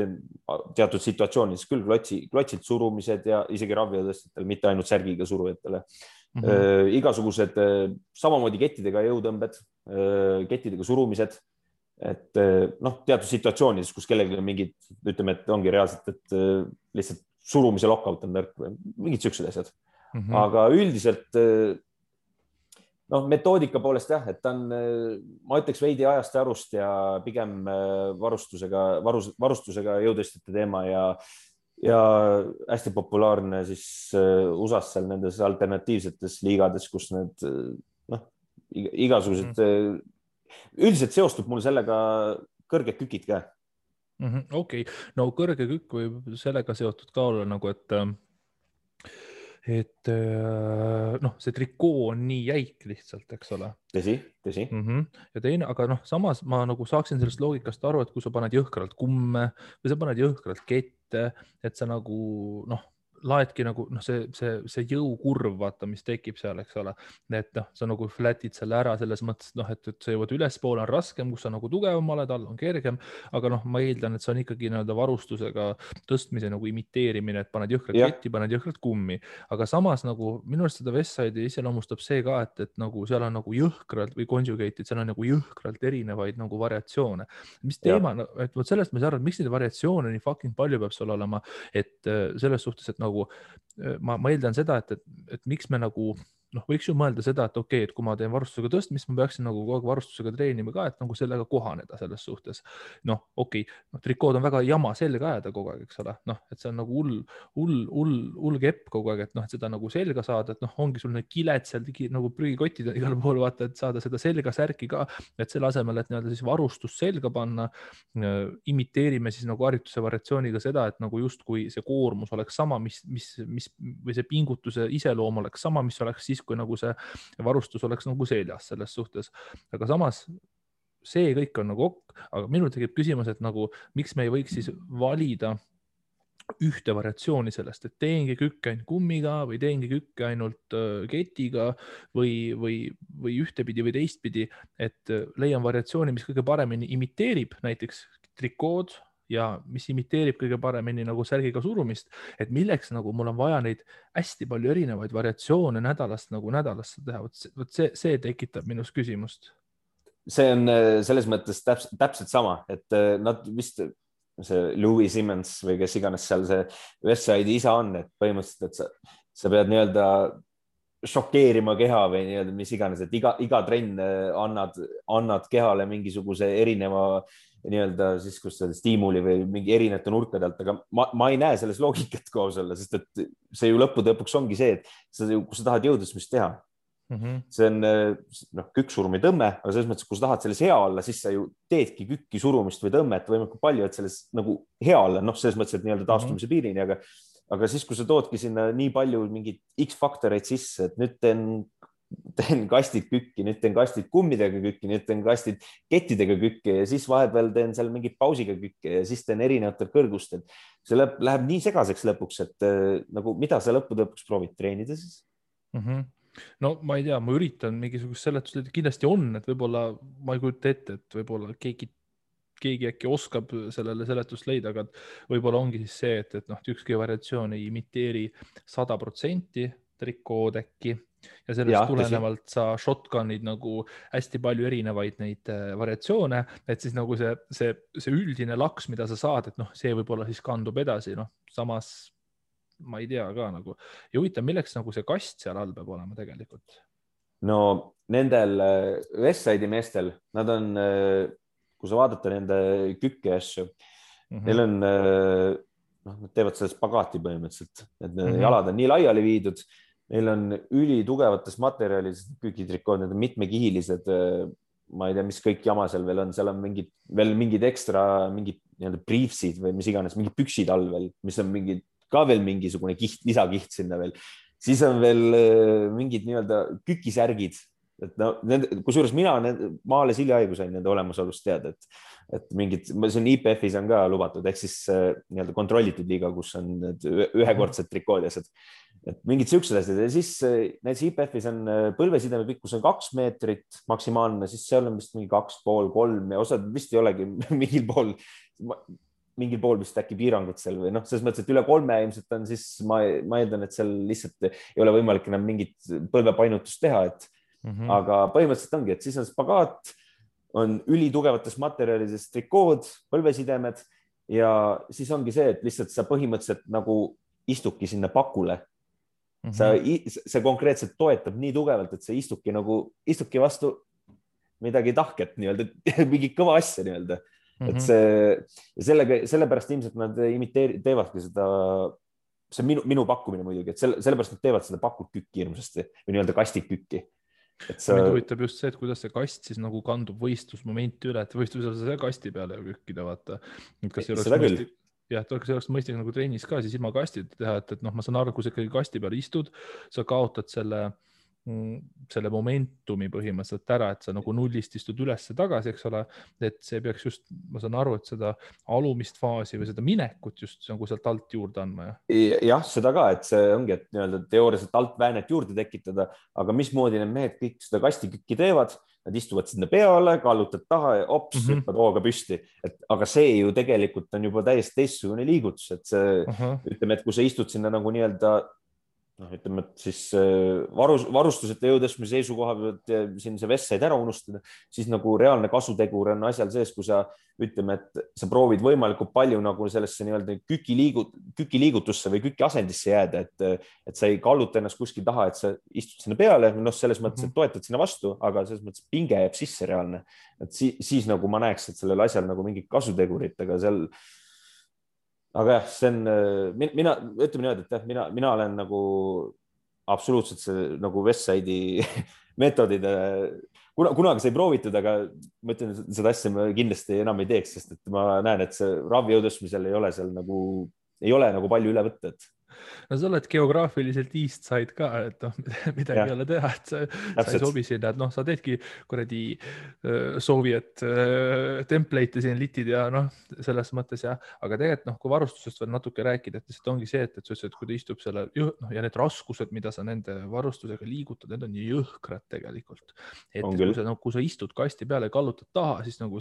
[SPEAKER 2] teatud situatsioonides küll klotsilt surumised ja isegi raviotõstjatel, mitte ainult särgiga surujatele. Igasugused samamoodi kettidega jõutõmbed, kettidega surumised, et noh, teatud situatsioonides, kus kellelgi on mingid, ütleme, et ongi reaalselt, et lihtsalt surumise lockout on nõrk või mingid siuksed asjad. Aga üldiselt noh, metoodika poolest jah, et ta on, ma ütleks veidi ajast ja arust ja pigem varustusega jõutõstjate teema ja hästi populaarne siis USA-s seal nendes alternatiivsetes liigades, kus need noh, igasugused üldiselt seostub mul sellega kõrged kükid ka.
[SPEAKER 1] Okei, no kõrge kükk võib sellega seotud ka olla nagu, et noh, see trikoo on nii jäik lihtsalt, eks ole.
[SPEAKER 2] Tõsi.
[SPEAKER 1] Ja teine, aga noh, samas ma nagu saaksin sellest loogikast aru, et kui sa paned jõhkralt kumme või sa paned jõhkralt kette, et sa nagu noh, laedki nagu noh, see jõukurv, vaata, mis tekib seal, eks ole, et noh, sa nagu flatid selle ära selles mõttes, noh, et sa jõuad ülespoole on raskem, kus sa nagu tugevam oled, all on kergem, aga noh, ma eeldan, et see on ikkagi nii-öelda varustusega tõstmise nagu imiteerimine, et paned jõhkralt ketti, paned jõhkralt kummi, aga samas nagu minu arust seda Westside'i iseloomustab see ka, et nagu seal on nagu jõhkralt või conjugate'id, seal on nagu jõhkralt erinevaid nagu variatsioone. Mis teema, et vot sellest ma ei saa aru, et miks neid variatsioone nii fucking palju peab seal olema, et selles suhtes, et nagu ma eeldan seda, et miks me nagu noh, võiks ju mõelda seda, et okei, et kui ma teen varustusega tõstmist, ma peaksin nagu kogu aeg varustusega treenima ka, et nagu sellega kohaneda selles suhtes. Noh, okei, trikood on väga jama selga ajada kogu aeg, eks ole. Noh, et see on nagu hull kepp kogu aeg, et noh, et seda nagu selga saada, et noh, ongi sul need kiled seal nagu prügikotid igal pool, vaata, et saada seda selga särki ka, et selle asemel, et nii-öelda siis varustus selga panna, imiteerime siis nagu harjutuse variatsiooniga seda, et nagu justkui see koormus oleks sama, mis või see pingutuse iseloom oleks sama, mis oleks siis, kui nagu see varustus oleks nagu seljas selles suhtes. Aga samas see kõik on nagu aga minul tekib küsimus, et nagu miks me ei võiks siis valida ühte variatsiooni sellest, et teengi kükke ainult kummiga või teengi kükke ainult ketiga või ühtepidi või teistpidi, et leian variatsiooni, mis kõige paremini imiteerib näiteks trikood ja mis imiteerib kõige paremini nagu särgiga surumist, et milleks nagu mul on vaja neid hästi palju erinevaid variatsioone nädalast nagu nädalasse teha. Vot see tekitab minus küsimust.
[SPEAKER 2] See on selles mõttes täpselt sama, et nad vist see Louis Simmons või kes iganes seal see Westside'i isa on, et põhimõtteliselt, et sa pead nii-öelda šokeerima keha või nii-öelda mis iganes, et iga trenn annad kehale mingisuguse erineva nii-öelda siis, kus see stiimuli või mingi erinevate nurkade alt, aga ma ei näe selles loogikat koos olla, sest et see ju lõppude lõpuks ongi see, et kui sa tahad jõudlusmist teha, see on kükksurumi tõmme, aga selles mõttes, kui sa tahad selles hea olla, siis sa ju teedki kükki surumist või tõmmet võimalikult palju, et selles nagu hea olla, noh, selles mõttes, et nii-öelda taastumise piirini, aga siis, kui sa toodki sinna nii palju mingid X-faktoreid sisse, et nüüd teen kastid kükki, nüüd teen kastid kummidega kükki, nüüd teen kastid kettidega kükki ja siis vahepeal teen seal mingit pausiga kükki ja siis teen erinevatel kõrgustel. See läheb nii segaseks lõpuks, et nagu mida sa lõppude lõpuks proovid treenida siis?
[SPEAKER 1] No ma ei tea, ma üritan mingisugust seletust, kindlasti on, et võib-olla ma ei kujuta ette, et võib-olla keegi äkki oskab sellele seletust leida, aga võib-olla ongi siis see, et noh, ükski variatsioon ei imiteeri 100% trikood äkki ja sellest tulenevalt sa shotgun'id nagu hästi palju erinevaid neid variatsioone, et siis nagu see üldine laks, mida sa saad, et noh, see võib-olla siis kandub edasi, noh, samas ma ei tea ka nagu ja huvitav, milleks nagu see kast seal all peab olema tegelikult?
[SPEAKER 2] No nendel Westside'i meestel, nad on, kui sa vaadata nende kükke asju, neil on, nad teevad selle spagaati põhimõtteliselt, et jalad on nii laiali viidud Neil on ülitugevates materjalis kükitrikood, need on mitmekihilised, ma ei tea, mis kõik jama seal veel on, seal on mingid ekstra, mingid nii-öelda briefsid või mis iganes, mingid püksid all veel, mis on ka veel mingisugune kiht, lisakiht sinna veel. Siis on veel mingid nii-öelda kükisärgid, et no, kusjuures ma alles hiljaaegu sain nende olemasolust teada, et mingid, see on IPF-is on ka lubatud, ehk siis nii-öelda kontrollitud liiga, kus on need ühekordsed trikood ja asjad. Et mingid siuksed asjad ja siis näiteks IPF-is on põlvesideme pikkus on 2 meetrit maksimaalne, siis seal on vist mingi 2,5, 3 ja osad vist ei olegi mingil pool vist äkki piirangut seal või noh, selles mõttes, et üle 3 ilmselt on, siis ma eeldan, et seal lihtsalt ei ole võimalik enam mingit põlvepainutust teha, aga põhimõtteliselt ongi, et siis on spagaat, on ülitugevates materjalides trikood, põlvesidemed ja siis ongi see, et lihtsalt sa põhimõtteliselt nagu istudki sinna pakule. See konkreetselt toetab nii tugevalt, et sa istudki vastu midagi tahket nii-öelda, mingi kõva asja nii-öelda. Et sellepärast ilmselt nad teevadki seda, see on minu pakkumine muidugi, et sellepärast nad teevad seda pakult kükki hirmsasti või nii-öelda kastikükki.
[SPEAKER 1] Mind huvitab just see, et kuidas see kast siis nagu kandub võistlusmomenti üle, et võistlusel sa kasti peale kükkida, vaata. Kas ei oleks mõistlik? Jah, et oleks mõistlik nagu trennis ka siis ilma kastita teha, et noh, ma saan aru, kui sa ikkagi kasti peal istud, sa kaotad selle momentumi põhimõtteliselt ära, et sa nagu nullist istud ülesse tagasi, eks ole, et see peaks just, ma saan aru, et seda alumist faasi või seda minekut just nagu sealt alt juurde andma.
[SPEAKER 2] Jah, seda ka, et see ongi, et nii-öelda teooriaselt alt väänet juurde tekitada, aga mismoodi need mehed kõik seda kastikükki teevad, nad istuvad sinna peale, kallutad taha ja ops, hüppad hooga püsti. Aga see ju tegelikult on juba täiesti teistsugune liigutus, et see, ütleme, et kui sa istud sinna nagu nii-öelda, ütleme, et siis varustusete jõutõstmise seisukoha pealt siin see vest said ära unustada, siis nagu reaalne kasutegur on asjal sees, kui sa ütleme, et sa proovid võimalikult palju nagu sellesse nii-öelda kükiliigutusse või kükiasendisse jääda, et sa ei kalluta ennast kuskil taha, et sa istud sinna peale, noh, selles mõttes, et toetad sinna vastu, aga selles mõttes pinge jääb sisse reaalne. Et siis nagu ma näeks, et sellel asjal nagu mingid kasutegurid, aga jah, see on, ütleme niimoodi, et mina olen nagu absoluutselt see nagu Westside'i metodide, kunagi sai proovitud, aga ma ütlen, seda asja ma kindlasti enam ei teeks, sest et ma näen, et see ravi jõutõstmisel ei ole seal nagu palju üle võtta, et
[SPEAKER 1] no sa oled geograafiliselt east side ka, et noh, midagi ei ole teha, et sa ei sobi sinna, et noh, sa teedki kuradi Soviet template'e siin litid ja noh, selles mõttes jah, aga tegelikult noh, kui varustusest veel natuke rääkida, et lihtsalt ongi see, et sa ütlesid, et kui ta istub selle noh, ja need raskused, mida sa nende varustusega liigutad, need on nii jõhkrad tegelikult, et kui sa istud kasti peale ja kallutad taha, siis nagu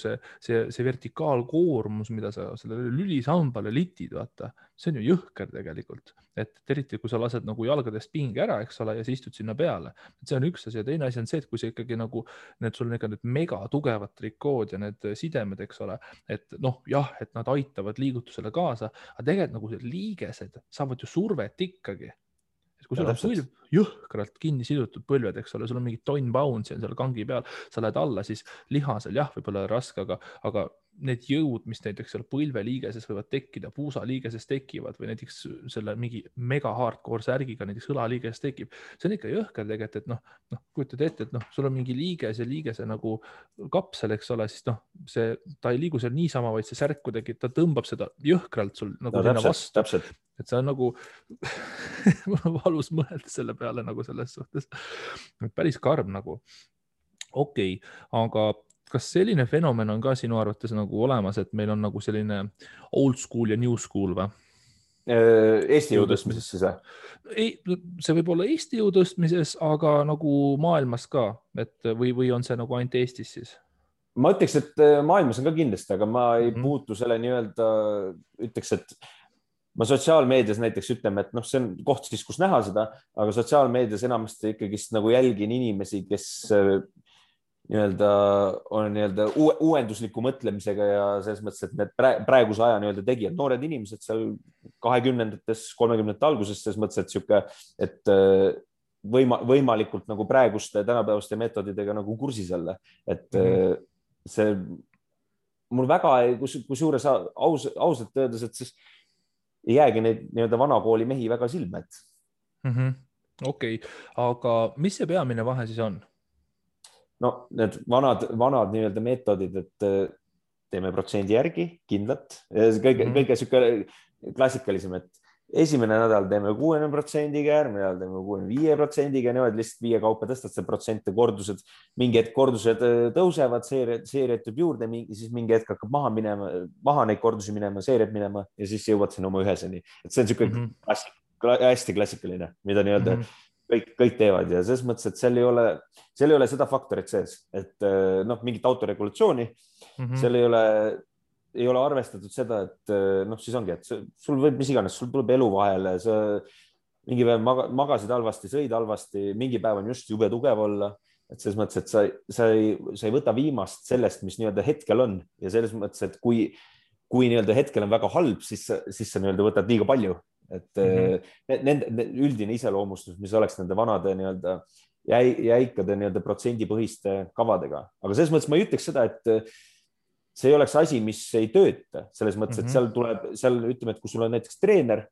[SPEAKER 1] see vertikaalkoormus, mida sa sellele lülisambale litid, vaata, see on ju jõhker tegelikult, et eriti kui sa lased nagu jalgadest pinge ära, eks ole, ja sa istud sinna peale. See on üks asi ja teine asi on see, et kui sa ikkagi nagu sul on ikka need mega tugevad trikood ja need sidemed, eks ole, et noh, jah, et nad aitavad liigutusele kaasa, aga tegelikult nagu liigesed saavad ju survet ikkagi. Et kui sul on põlv jõhkralt kinni sidutud põlved, eks ole, sul on mingi tonn bounce'i on seal kangi peal, sa lähed alla, siis lihasel jah, võib-olla raske, aga need jõud, mis näiteks seal põlveliigeses võivad tekkida, puusaliigeses tekivad või näiteks selle mingi mega hardcore särgiga näiteks õlaliigeses tekib, see on ikka jõhker tegelikult, et noh, kujutad ette, et noh, sul on mingi liiges ja liigese nagu kapsel, eks ole, siis noh, ta ei liigu seal niisama, vaid see särk kuidagi, ta tõmbab seda jõhkralt sul nagu sinna vastu. Et see on nagu valus mõelda selle peale nagu selles suhtes. Päris karm nagu. Okei, aga kas selline fenomen on ka sinu arvates nagu olemas, et meil on nagu selline old school ja new school või?
[SPEAKER 2] Eesti jõutõstmises siis või?
[SPEAKER 1] See võib olla Eesti jõutõstmises, aga nagu maailmas ka, et või on see nagu ainult Eestis siis?
[SPEAKER 2] Ma ütleks, et maailmas on ka kindlasti, aga ma ei puutu selle nii-öelda, ütleks, et ma sotsiaalmeedias näiteks ütleme, et noh, see on koht siis, kus näha seda, aga sotsiaalmeedias enamasti ikkagi nagu jälgin inimesi, kes nii-öelda on nii-öelda uuendusliku mõtlemisega ja selles mõttes, et need praeguse aja nii-öelda tegijad, noored inimesed seal 20-ndates, 30-ndate alguses, selles mõttes, et sihuke, et võimalikult nagu praeguste tänapäevaste metodidega nagu kursis olla, et see mul väga, kusjuures ausalt öeldes, et siis ei jäägi neid nii-öelda vanakooli mehi väga silme, et
[SPEAKER 1] Okei, aga mis see peamine vahe siis on?
[SPEAKER 2] No need vanad nii-öelda meetodid, et teeme protsendi järgi kindlalt. Kõige sihuke klassikalisem, et esimene nädal teeme 60%-ga, järgmine nädal teeme 65%-ga, niimoodi lihtsalt 5 kaupa tõstad see protsente, kordused, mingi hetk kordused tõusevad, seeriad tuleb juurde, siis mingi hetk hakkab maha neid kordusi minema, seeriad minema ja siis jõuad sinna oma üheseni. Et see on sihuke hästi klassikaline, mida nii-öelda kõik teevad ja selles mõttes, et seal ei ole seda faktorit sees, et noh, mingit autoregulatsiooni, seal ei ole arvestatud seda, et noh, siis ongi, et sul võib mis iganes, sul tuleb elu vahele, sa mingi päev magasid halvasti, sõid halvasti, mingi päev on just jube tugev olla, et selles mõttes, et sa ei võta viimast sellest, mis nii-öelda hetkel on ja selles mõttes, et kui nii-öelda hetkel on väga halb, siis sa nii-öelda võtad liiga palju. Et nende üldine iseloomustus, mis oleks nende vanade nii-öelda jäikade nii-öelda protsendipõhiste kavadega. Aga selles mõttes ma ei ütleks seda, et see ei oleks asi, mis ei tööta. Selles mõttes, et seal ütleme, et kui sul on näiteks treener,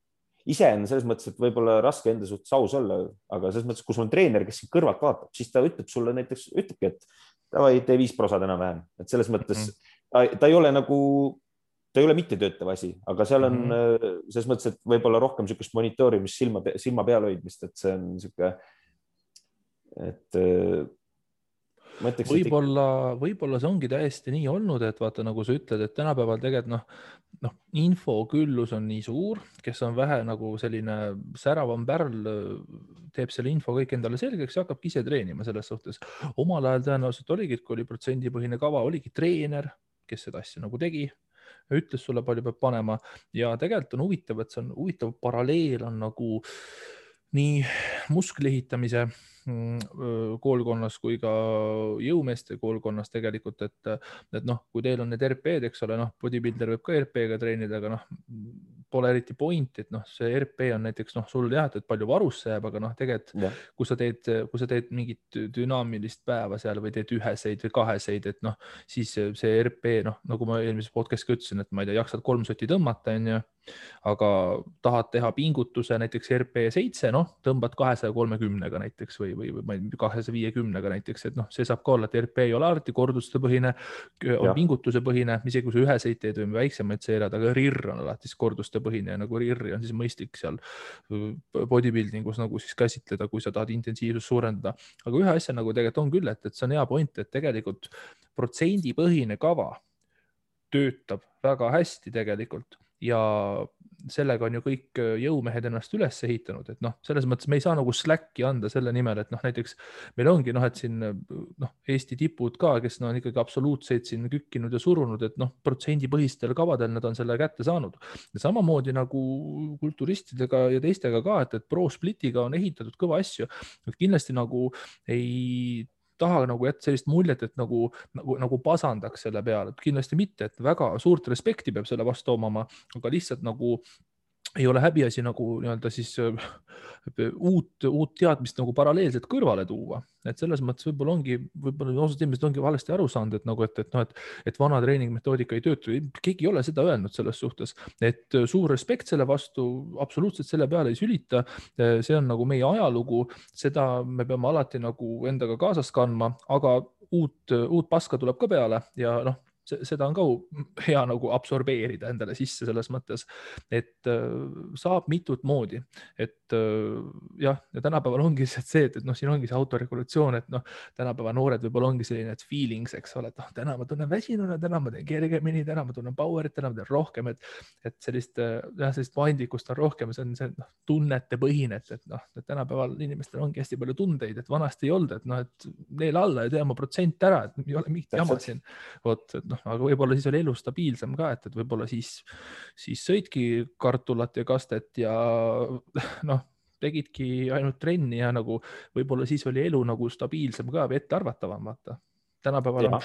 [SPEAKER 2] ise on selles mõttes, et võib-olla raske enda suhtes aus olla, aga selles mõttes, kui sul on treener, kes kõrvalt vaatab, siis ta ütleb sulle näiteks, ütlebki, et davai, tee 5% enam-vähem. Et selles mõttes ta ei ole nagu ta ei ole mitte töötav asi, aga seal on selles mõttes, et võib-olla rohkem niisugust monitoorimist, silma peal hoidmist, et see on niisugune, et ma ütleks,
[SPEAKER 1] võib-olla see ongi täiesti nii olnud, et vaata, nagu sa ütled, et tänapäeval tegelikult infoküllus on nii suur, kes on vähe nagu selline säravam pärl, teeb selle info kõik endale selgeks ja hakkabki ise treenima selles suhtes. Omal ajal tõenäoliselt oligi, kui oli protsendipõhine kava, oligi treener, kes seda asja nagu tegi, ütles sulle palju peab panema ja tegelikult on huvitav, et see on huvitav paralleel on nagu nii musklihitamise koolkonnas kui ka jõumeeste koolkonnas tegelikult, et noh, kui teil on need RP-d, eks ole, noh, bodybuilder võib ka RP-ga treenida, aga noh, pole eriti point, et noh, see RP on näiteks noh, sul jah, et palju varusse jääb, aga noh, tegelikult kui sa teed mingit dünaamilist päeva seal või teed üheseid või kaheseid, et noh, siis see RP, noh, nagu ma eelmises podcast'i ütlesin, et ma ei tea, jaksad 3 sotti tõmmata, on ju, aga tahad teha pingutuse näiteks RP7, noh, tõmbad 230-ga näiteks või 250-ga näiteks, et noh, see saab ka olla, et RP ei ole alati korduste põhine, on pingutuse põhine, isegi kui sa üheseid teed või väiksemaid seerad, aga RIR on alati korduste põhine ja nagu RIR-i on siis mõistlik seal bodybuildingus nagu siis käsitleda, kui sa tahad intensiivsust suurendada. Aga ühe asja nagu tegelikult on küll, et see on hea point, et tegelikult protsendipõhine kava töötab väga hästi tegelikult ja sellega on ju kõik jõumehed ennast üles ehitanud, et noh, selles mõttes me ei saa nagu släkki anda selle nimel, et noh, näiteks meil ongi noh, et siin noh, Eesti tipud ka, kes on ikkagi absoluutseid siin kükkinud ja surunud, et noh, protsendipõhistel kavadel nad on selle kätte saanud. Ja samamoodi nagu kulturistidega ja teistega ka, et Pro Splitiga on ehitatud kõva asju, et kindlasti nagu ei taha nagu jätta sellist muljet, et nagu pasandaks selle peale, et kindlasti mitte, et väga suurt respekti peab selle vastu omama, aga lihtsalt nagu ei ole häbiasi nagu nii-öelda siis uut teadmist nagu paralleelselt kõrvale tuua. Et selles mõttes võib-olla osad inimesed ongi valesti aru saanud, et nagu, et vana treeningmetoodika ei töötu. Keegi ei ole seda öelnud selles suhtes, et suur respekt selle vastu, absoluutselt selle peale ei sülita. See on nagu meie ajalugu, seda me peame alati nagu endaga kaasas kandma, aga uut paska tuleb ka peale ja noh, seda on ka hea nagu absorbeerida endale sisse selles mõttes, et saab mitut moodi, et jah, ja tänapäeval ongi see, et noh, siin ongi see autoregulatsioon, et noh, tänapäeva noored võib-olla ongi selline, et feelings, eks ole, et noh, täna ma tunnen väsinuna, täna ma teen kergemini, täna ma tunnen power'it, täna ma teen rohkem, et sellist paindlikkust on rohkem, see on noh, tunnete põhine, et noh, tänapäeval inimestel ongi hästi palju tundeid, et vanasti ei olnud, et noh, et neil alla ja tee oma protsent ära, et ei ole mingit jama siin, vot, et noh, aga võib-olla siis oli elu stabiilsem ka, et võib-olla siis sõidki kartulat ja kastet ja noh, tegidki ainult trenni ja nagu võib-olla siis oli elu nagu stabiilsem ka või ettearvatavam, vaata. Tänapäeval on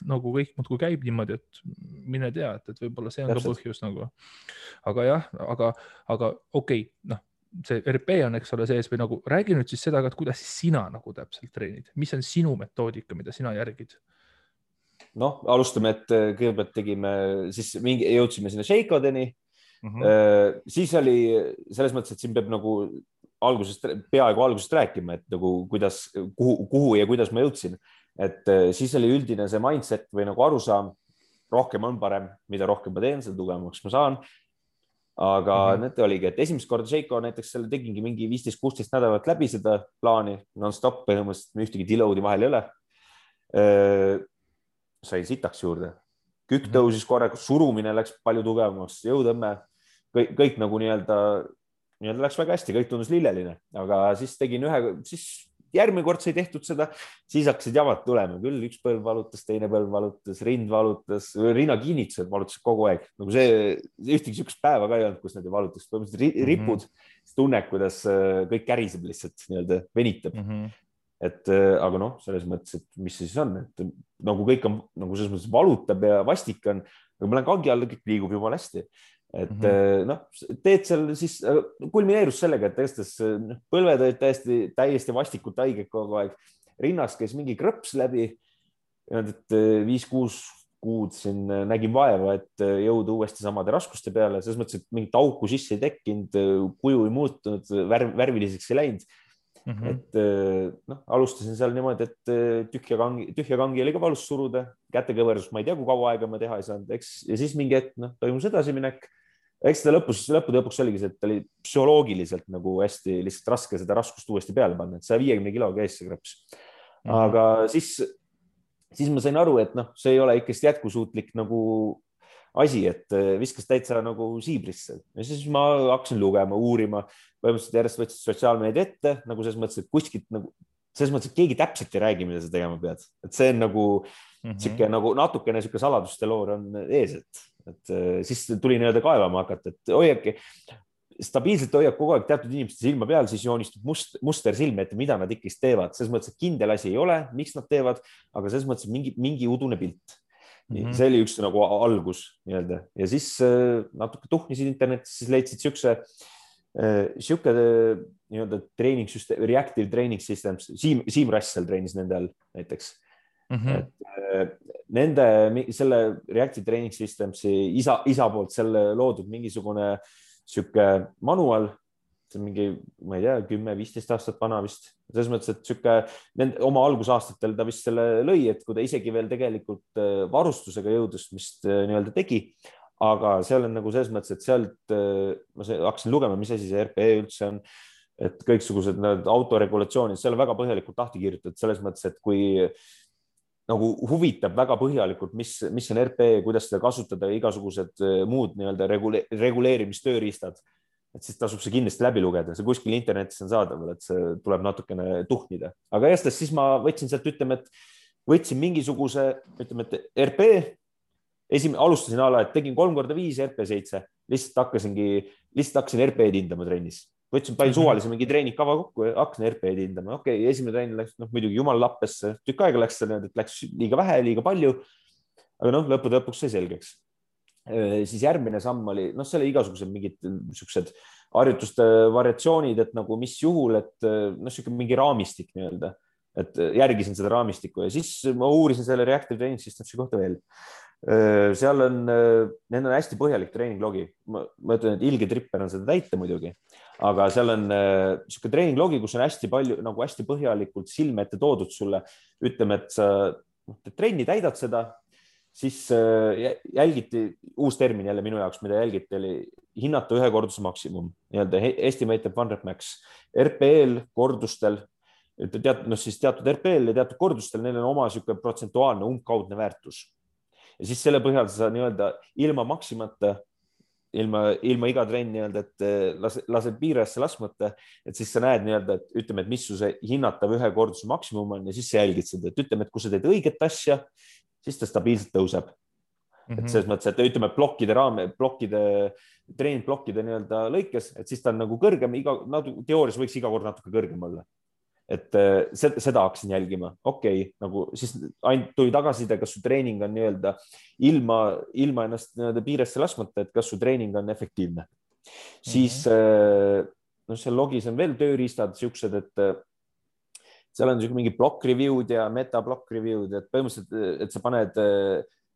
[SPEAKER 1] nagu kõik muudkui käib niimoodi, et mine tea, et võib-olla see on ka põhjus nagu. Aga jah, aga okei, noh, see RP on, eks ole, sees või nagu räägi nüüd siis seda, et kuidas sina nagu täpselt treenid, mis on sinu metoodika, mida sina järgid?
[SPEAKER 2] Noh, alustame, et kõigepealt siis jõudsime sinna Shakeodeni. Siis oli selles mõttes, et siin peab nagu peaaegu algusest rääkima, et nagu kuidas, kuhu ja kuidas ma jõudsin. Et siis oli üldine see mindset või nagu arusaam, rohkem on parem, mida rohkem ma teen, seda tugevamaks ma saan. Aga need oligi, et esimest korda Seiko näiteks selle tegingi mingi 15-16 nädalat läbi seda plaani, non-stop põhimõtteliselt ühtegi deload'i vahel ei ole. Sai sitaks juurde. Kükk tõusis korraga, surumine läks palju tugevamaks, jõutõmme, kõik nagu nii-öelda läks väga hästi, kõik tundus lilleline, aga siis tegin siis järgmine kord sai tehtud seda, siis hakkasid jamad tulema, küll üks põlv valutas, teine põlv valutas, rind valutas, rinnakinnitused valutasid kogu aeg. Nagu see ühtegi sihukest päeva ka ei olnud, kus need ei valutas. Põhimõtteliselt ripud, tunned, kuidas kõik käriseb lihtsalt nii-öelda venitab. Et, aga noh, selles mõttes, et mis see siis on, et nagu kõik on nagu selles mõttes valutab ja vastik on, aga ma lähen kangi alla, kõik liigub jumala hästi. Et noh, teed seal siis kulmineerus sellega, et tõestas põlved olid täiesti vastikult haiged kogu aeg. Rinnas käis mingi krõps läbi, et 5-6 kuud siin nägin vaeva, et jõuda uuesti samade raskuste peale. Selles mõttes, et mingit auku sisse ei tekkinud, kuju ei muutunud, värviliseks ei läinud. Et noh, alustasin seal niimoodi, et tühja kangi oli ka valus suruda, kätekõversus, ma ei tea, kui kaua aega ma teha ei saanud, eks, ja siis mingi hetk, noh, toimus edasiminek. Eks seda lõppude lõpuks oligi see, et oli psühholoogiliselt nagu hästi lihtsalt raske seda raskust uuesti peale panna, et 150 kilo käis see krõps. Aga siis ma sain aru, et noh, see ei ole ikkest jätkusuutlik nagu asi, et viskas täitsa nagu siibrisse. Ja siis ma hakkasin lugema, uurima, põhimõtteliselt järjest võtsid sotsiaalmeedia ette, nagu selles mõttes, et kuskilt nagu, selles mõttes, et keegi täpselt ei räägi, mida sa tegema pead. Et see on nagu, nagu natukene siuke saladuste loor on ees, et siis tuli nii-öelda kaevama hakata, et hoiake, stabiilselt hoiab kogu aeg teatud inimeste silma peal, siis joonistub muster silme ette, mida nad ikkist teevad. Selles mõttes, et kindel asi ei ole, miks nad teevad, aga selles mõttes mingi udune pilt. See oli üks nagu algus nii-öelda. Ja siis natuke tuhnisid internetis, siis leidsid siuke nii-öelda treeningssüsteem, reactive training systems, Siim Rassel treenis nende all näiteks. Nende selle reactive training systemsi isa poolt selle loodud mingisugune siuke manual, see on mingi, ma ei tea, 10-15 aastat vana vist. Selles mõttes, et siuke oma algusaastatel ta vist selle lõi, et kui ta isegi veel tegelikult varustusega jõudus, mis nii-öelda tegi, aga seal on nagu selles mõttes, et sealt ma hakkasin lugema, mis asi see RPE üldse on, et kõiksugused autoregulatsioonid, seal on väga põhjalikult lahti kirjutatud selles mõttes, et kui nagu huvitab väga põhjalikult, mis on RPE, kuidas seda kasutada ja igasugused muud nii-öelda reguleerimistööriistad, et siis tasub see kindlasti läbi lugeda. See kuskil internetis on saadaval, et see tuleb natukene tuhnida. Aga jästes siis ma võtsin sealt, ütleme, et võtsin mingisuguse, ütleme, et RPE, alustasin ala, et tegin 3x5 RP7, lihtsalt hakkasin RPE-d hindama trennis. Võtsin palju suvalise mingi treeningkava kokku ja hakkasin RPE-d hindama. Okei, esimene trenn läks muidugi jumal lappesse, tükk aega läks, et läks liiga vähe, liiga palju, aga noh, lõpuks sai selgeks. Siis järgmine samm oli, noh, selle igasugused mingid siuksed harjutuste variatsioonid, et nagu mis juhul, et noh, siuke mingi raamistik nii-öelda, et järgisin seda raamistikku ja siis ma uurisin selle reactive training systemsi kohta veel. Seal on, need on hästi põhjalik treeninglogi. Ma ütlen, et ilge tripper on seda täita muidugi, aga seal on siuke treeninglogi, kus on hästi palju, nagu hästi põhjalikult silme ette toodud sulle. Ütleme, et sa trenni täidad seda, siis jälgiti, uus termin jälle minu jaoks, mida jälgiti, oli hinnata ühe korduse maksimum, nii-öelda estimated one rep max. RPL kordustel, teatud RPL ja teatud kordustel, neil on oma siuke protsentuaalne umbkaudne väärtus. Ja siis selle põhjal sa nii-öelda ilma maksimata, ilma iga trenn nii-öelda, et lased piirajasse laskmata, et siis sa näed nii-öelda, et ütleme, et mis su see hinnatav ühe korduse maksimum on ja siis sa jälgid seda, et ütleme, et kui sa teed õiget asja, siis ta stabiilselt tõuseb. Et selles mõttes, et ütleme treeningblokkide nii-öelda lõikes, et siis ta on nagu kõrgem, teoorias võiks iga kord natuke kõrgem olla. Et seda hakkasin jälgima. Okei, nagu siis ainult tuli tagasiside, kas su treening on nii-öelda ilma ennast nii-öelda piiresse laskmata, et kas su treening on efektiivne. Siis seal logis on veel tööriistad siuksed, et seal on mingi block review'd ja meta block review'd, et põhimõtteliselt, et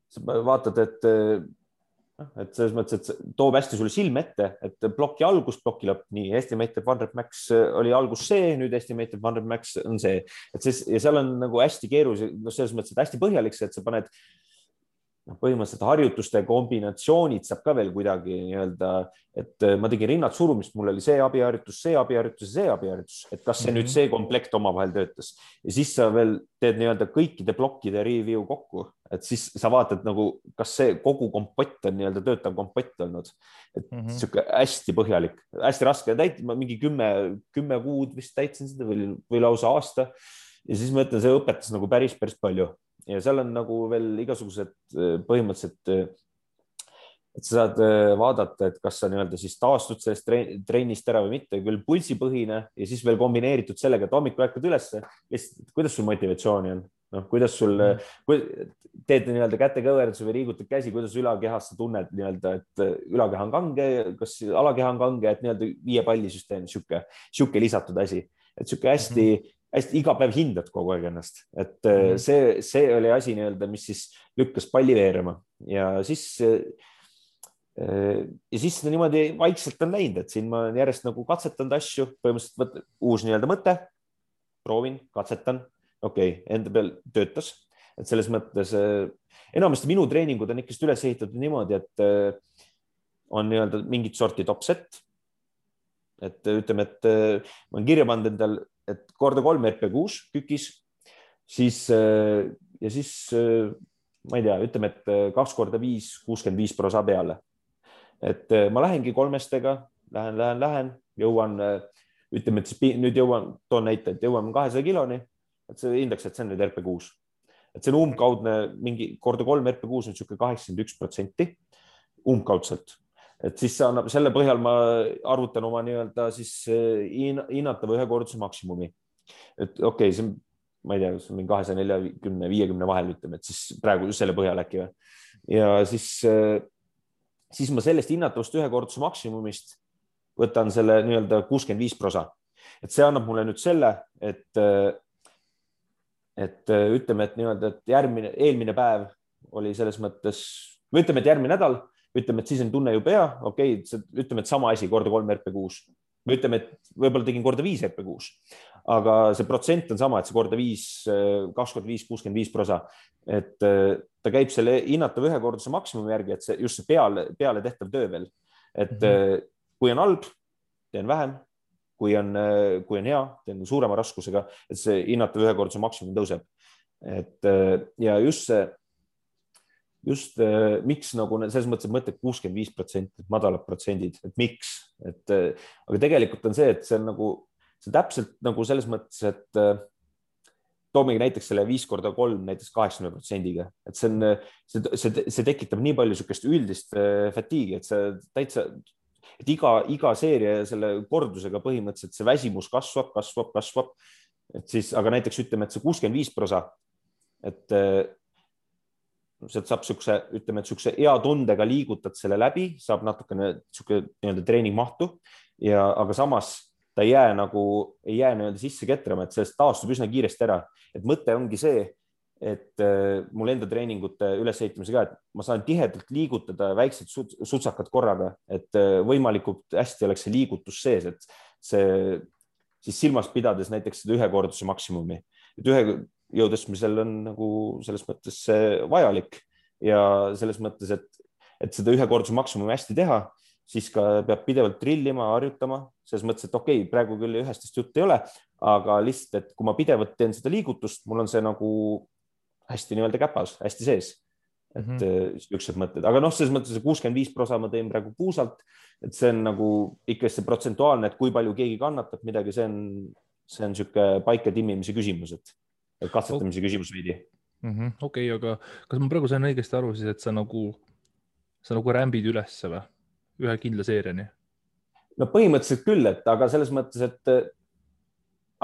[SPEAKER 2] sa vaatad, et et selles mõttes, et see toob hästi sulle silme ette, et ploki algus, ploki lõpp, nii Estimated One-Rep Max oli algus see, nüüd Estimated One-Rep Max on see, et see ja seal on nagu hästi keeruline, no selles mõttes, et hästi põhjalik see, et sa paned põhimõtteliselt harjutuste kombinatsioonid saab ka veel kuidagi nii-öelda, et ma tegin rinnad surumist, mul oli see abiharjutus, see abiharjutus ja see abiharjutus, et kas see nüüd see komplekt omavahel töötas ja siis sa veel teed nii-öelda kõikide plokkide review kokku, et siis sa vaatad nagu, kas see kogu kompott on nii-öelda töötav kompott olnud, et sihuke hästi põhjalik, hästi raske täita, ma mingi 10 kuud vist täitsin seda või lausa aasta ja siis ma ütlen, see õpetas nagu päris palju. Ja seal on nagu veel igasugused põhimõtteliselt, et sa saad vaadata, et kas sa nii-öelda siis taastud sellest trennist ära või mitte, küll pulsipõhine ja siis veel kombineeritud sellega, et hommikul ärkad ülesse, kuidas sul motivatsiooni on, noh, kuidas sul teed nii-öelda kätekõverduse või liigutad käsi, kuidas ülakehas sa tunned nii-öelda, et ülakeha on kange, kas alakeha on kange, et nii-öelda 5 pallisüsteem, sihuke lisatud asi, et sihuke hästi iga päev hindad kogu aeg ennast, et see oli asi nii-öelda, mis siis lükkas palli veerema ja siis niimoodi vaikselt on läinud, et siin ma olen järjest nagu katsetanud asju, põhimõtteliselt uus nii-öelda mõte, proovin, katsetan, okei, enda peal töötas, et selles mõttes enamasti minu treeningud on ikkest üles ehitatud niimoodi, et on nii-öelda mingit sorti topset, et ütleme, et ma olen kirja pannud endal, et korda 3 RP6 kükis, siis ja siis ma ei tea, ütleme, et 2 korda 5, 65% peale. Et ma lähengi 3-stega, lähen, jõuan, ütleme, et nüüd toon näite, et jõuan 200 kiloni, et see hindaks, et see on nüüd RP6. Et see on umbkaudne, mingi korda 3 RP6 on siuke 81% umbkaudselt. Et siis annab, selle põhjal ma arvutan oma nii-öelda siis hinnatava ühekordse maksimumi. Et okei, see on, ma ei tea, see on mingi 240-50 vahel, ütleme, et siis praegu selle põhjal äkki või. Ja siis ma sellest hinnatavast ühekordse maksimumist võtan selle nii-öelda 65%. Et see annab mulle nüüd selle, et ütleme, et nii-öelda, et eelmine päev oli selles mõttes, või ütleme, et järgmine nädal, ütleme, et siis on tunne ju pea, okei, ütleme, et sama asi korda 3 RP6. Või ütleme, et võib-olla tegin korda 5 RP6, aga see protsent on sama, et see korda 5, 2 korda 5, 65%. Et ta käib selle hinnatava ühekordse maksimumi järgi, et see just see peale tehtav töö veel. Et kui on halb, teen vähem, kui on hea, teen suurema raskusega, et see hinnatav ühekordse maksimum tõuseb. Et ja just miks nagu selles mõttes, et mõtled 65%, madalad protsendid, et miks, aga tegelikult on see, et see on nagu, see täpselt nagu selles mõttes, et toomegi näiteks selle 5 korda 3 näiteks 80%-ga, et see tekitab nii palju sükest üldist fatiigi, et see täitsa, et iga seeria selle kordusega põhimõtteliselt see väsimus kasvab, et siis, aga näiteks ütleme, et see 65%, et sealt saab sükse, ütleme, et sükse hea tundega liigutad selle läbi, saab natukene süke nii-öelda treeningmahtu ja, aga samas ta ei jää nii-öelda sisse ketrama, et sellest taastub üsna kiiresti ära. Et mõte ongi see, et mul enda treeningute ülesehitamise ka, et ma saan tihedalt liigutada väiksed sutsakad korraga, et võimalikult hästi oleks see liigutus sees, et see siis silmas pidades näiteks seda ühekorduse maksimumi, et jõudesmisel on nagu selles mõttes vajalik ja selles mõttes, et seda ühekordse maksimumi hästi teha, siis ka peab pidevalt trillima, harjutama, selles mõttes, et okei, praegu küll ühestest jutt ei ole, aga lihtsalt, et kui ma pidevalt teen seda liigutust, mul on see nagu hästi nii-öelda käpas, hästi sees, et ükskord mõtted, aga noh, selles mõttes 65% ma teen praegu puusalt, et see on nagu ikka see protsentuaalne, et kui palju keegi kannatab midagi, see on siuke paika timmimise küsimus, et katsetamise küsimus veidi.
[SPEAKER 1] Okei, aga kas ma praegu sain õigesti aru siis, et sa nagu rämbid ülesse või? Ühe kindla seeriani?
[SPEAKER 2] No põhimõtteliselt küll, aga selles mõttes,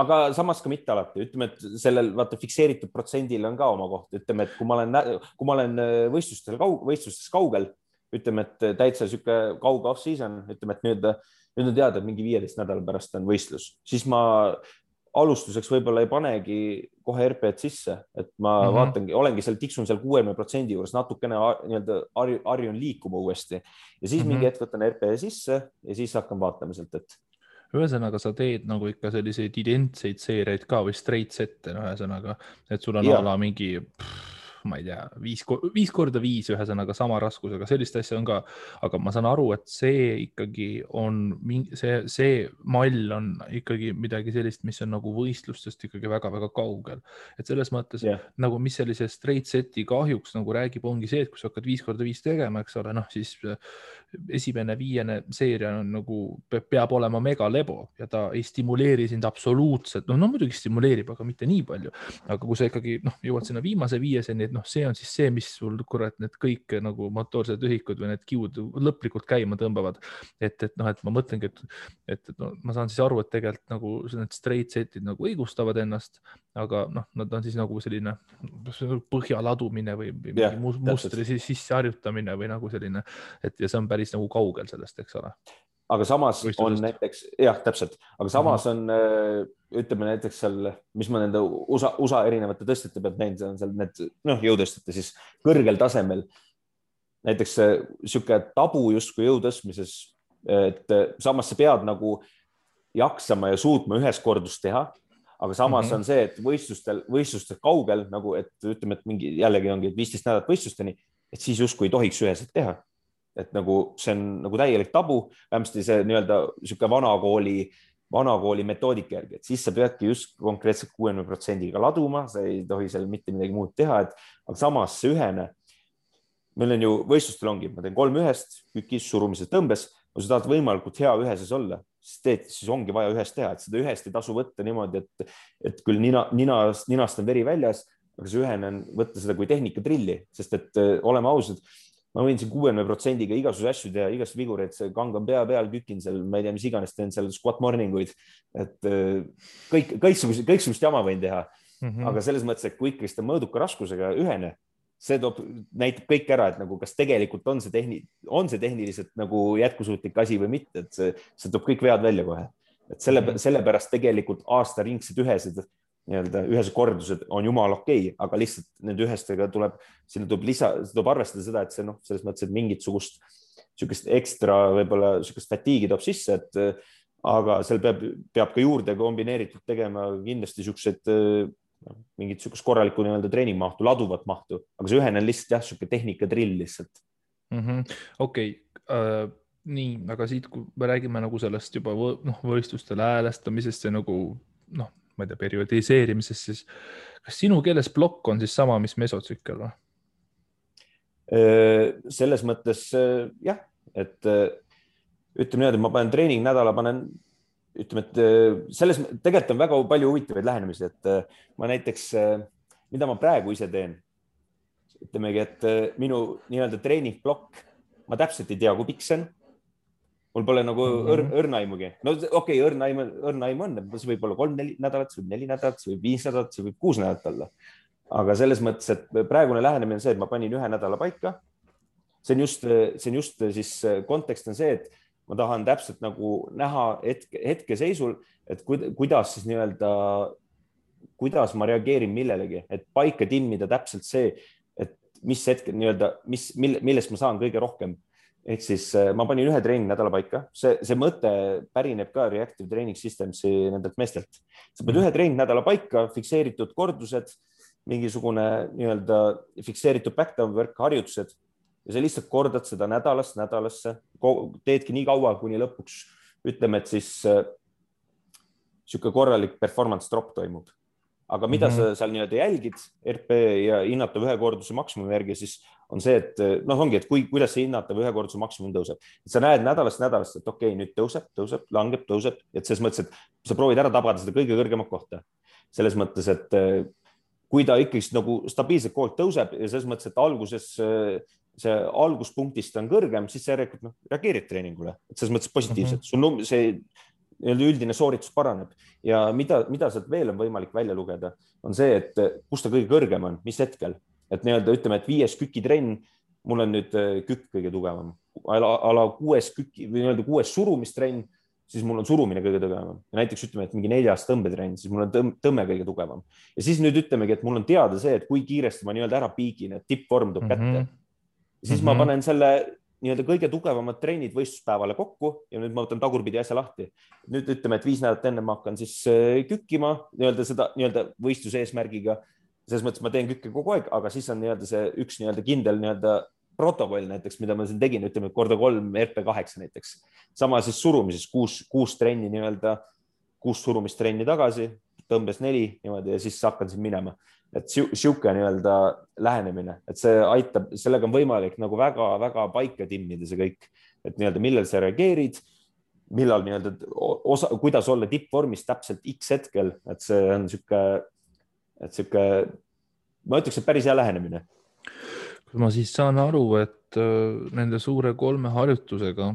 [SPEAKER 2] aga samas ka mitte alati. Ütleme, et sellel fikseeritud protsendil on ka oma koht. Ütleme, et kui ma olen võistlustes kaugel, ütleme, et täitsa siuke kauge off-season, ütleme, et nüüd on teada, et mingi 15 nädala pärast on võistlus, siis ma alustuseks võib-olla ei panegi kohe RP-d sisse, et ma vaatangi, olengi seal, tiksun seal 60% juures, natukene nii-öelda harjun liikuma uuesti ja siis mingi hetk võtan RP sisse ja siis hakkan vaatama sealt, et
[SPEAKER 1] ühesõnaga, sa teed nagu ikka selliseid identseid seeriaid ka või straight sette, ühesõnaga, et sul on ala mingi, ma ei tea, 5x5, ühesõnaga sama raskusega, sellist asja on ka, aga ma saan aru, et see ikkagi on, see mall on ikkagi midagi sellist, mis on nagu võistlustest ikkagi väga-väga kaugel. Et selles mõttes, nagu mis sellise straight seti kahjuks nagu räägib, ongi see, et kui sa hakkad 5x5 tegema, eks ole, siis esimene 5. seeria on nagu, peab olema mega lebo ja ta ei stimuleeri sind absoluutselt, no muidugi stimuleerib, aga mitte nii palju. Aga kui sa ikkagi jõuad sinna viimase 5-seni, et see on siis see, mis sul kurat need kõik nagu motoorsed ühikud või need kiud lõplikult käima tõmbavad. Et ma mõtlengi, et ma saan siis aru, et tegelikult nagu need straight setid nagu õigustavad ennast, aga nad on siis nagu selline põhjaladumine või mustri sisse harjutamine või nagu selline, et ja see on päris nagu kaugel sellest, eks ole.
[SPEAKER 2] Aga samas on näiteks, täpselt, aga samas on, ütleme näiteks seal, mis ma nende USA erinevate tõstjate pealt näinud, on seal need jõutõstjate siis kõrgel tasemel. Näiteks sihuke tabu justkui jõutõstmises, et samas sa pead nagu jaksama ja suutma ühes kordust teha, aga samas on see, et võistlustel kaugel nagu, et ütleme, et mingi jällegi ongi 15 nädalat võistlusteni, et siis justkui ei tohiks üheselt teha. Et nagu see on nagu täielik tabu, vähemasti see nii-öelda sihuke vanakooli metoodika järgi, et siis sa peadki just konkreetselt 60%-ga laduma, sa ei tohi seal mitte midagi muud teha, aga samas see ühene, meil on ju võistlustel ongi, ma teen 3-1, kükis, surumises, tõmbes, kui sa tahad võimalikult hea üheses olla, siis ongi vaja ühest teha, et seda ühest ei tasu võtta niimoodi, et küll ninast on veri väljas, aga see ühene on võtta seda kui tehnikatrilli, sest et oleme ausad, ma võin siin 60%-ga igasuguse asju teha, igasuguse vigureid, see kangan pea peal, kükin seal, ma ei tea, mis iganes, teen seal squat morninguid, et kõiksugust jama võin teha. Aga selles mõttes, et kui ikkagi seda mõõduka raskusega ühene, see näitab kõik ära, et nagu kas tegelikult on see tehniliselt nagu jätkusuutlik asi või mitte, et see toob kõik vead välja kohe. Et sellepärast tegelikult aastaringsed ühesed kordused on jumal okei, aga lihtsalt nende ühestega tuleb arvestada seda, et see selles mõttes, et mingit sugust ekstra võib-olla sugust fatiigi toob sisse, aga seal peab ka juurde kombineeritud tegema kindlasti mingit sugust korralikku treeningmahtu, laduvat mahtu, aga see ühene on lihtsalt siuke tehnikatrill lihtsalt.
[SPEAKER 1] Okei. Nii, aga siit, kui me räägime nagu sellest juba võistlustele häälestamisest ja nagu ma ei tea, periodiseerimisest, siis kas sinu keeles blokk on siis sama, mis mesotsükkel või?
[SPEAKER 2] Selles mõttes jah, et ütleme niimoodi, ma panen treeningnädala, ütleme, et selles tegelikult on väga palju huvitavaid lähenemisi, et ma näiteks, mida ma praegu ise teen, ütlemegi, et minu nii-öelda treeningblokk, ma täpselt ei tea, kui pikk see on. Mul pole nagu õrnaimugi. No okei, õrnaim on, see võib olla 3-4 nädalat, see võib 4 nädalat, see võib 5 nädalat, see võib 6 nädalat olla. Aga selles mõttes, et praegune lähenemine on see, et ma panin 1 nädala paika. See on just siis kontekst on see, et ma tahan täpselt nagu näha hetkeseisul, et kuidas siis nii-öelda, kuidas ma reageerin millelegi, et paika timmida täpselt see, et mis hetkel nii-öelda, millest ma saan kõige rohkem. Ehk siis ma panin 1 treeningnädala paika. See mõte pärineb ka Reactive Training Systemsi nendelt meestelt. Sa paned 1 treeningnädala paika, fikseeritud kordused, mingisugune nii-öelda fikseeritud backdown work, harjutused ja sa lihtsalt kordad seda nädalast nädalasse, teedki nii kaua, kuni lõpuks ütleme, et siis sihuke korralik performance drop toimub. Aga mida sa seal nii-öelda jälgid RP ja hinnatav ühekorduse maksimumi järgi, siis on see, et ongi, et kuidas see hinnatav ühekorduse maksimum tõuseb. Sa näed nädalast, et okei, nüüd tõuseb, langeb, tõuseb. Et selles mõttes, et sa proovid ära tabada seda kõige kõrgemat kohta. Selles mõttes, et kui ta ikkagi nagu stabiilselt koolt tõuseb ja selles mõttes, et alguses see alguspunktist on kõrgem, siis sa järelikult reageerid treeningule. Et selles mõttes positiivselt. See üldine sooritus paraneb ja mida sealt veel on võimalik välja lugeda, on see, et kus ta kõige kõrgem on, mis hetkel, et nii-öelda ütleme, et 5 kükitrenn, mul on nüüd kükk kõige tugevam, ala 6 kükki või nii-öelda 6 surumistrenn, siis mul on surumine kõige tugevam ja näiteks ütleme, et mingi 4. tõmbetrenn, siis mul on tõmme kõige tugevam ja siis nüüd ütlemegi, et mul on teada see, et kui kiiresti ma nii-öelda ära piigin, et tippvorm tuleb kätte. Siis ma panen selle nii-öelda kõige tugevamad trennid võistluspäevale kokku ja nüüd ma võtan tagurpidi asja lahti. Nüüd ütleme, et 5 nädalat enne ma hakkan siis kükkima nii-öelda seda nii-öelda võistluse eesmärgiga. Selles mõttes ma teen kükke kogu aeg, aga siis on nii-öelda see üks nii-öelda kindel nii-öelda protokoll näiteks, mida ma siin tegin, ütleme korda 3 RP8 näiteks. Sama siis surumises 6 trenni nii-öelda, 6 surumistrenni tagasi, tõmbes 4 niimoodi ja siis hakkan siin minema. Et siuke nii-öelda lähenemine, et see aitab, sellega on võimalik nagu väga-väga paika timmida see kõik, et nii-öelda millal sa reageerid, millal nii-öelda kuidas olla tippvormis täpselt X hetkel, et see on siuke, ma ütleks, et päris hea lähenemine.
[SPEAKER 1] Ma siis saan aru, et nende suure 3 harjutusega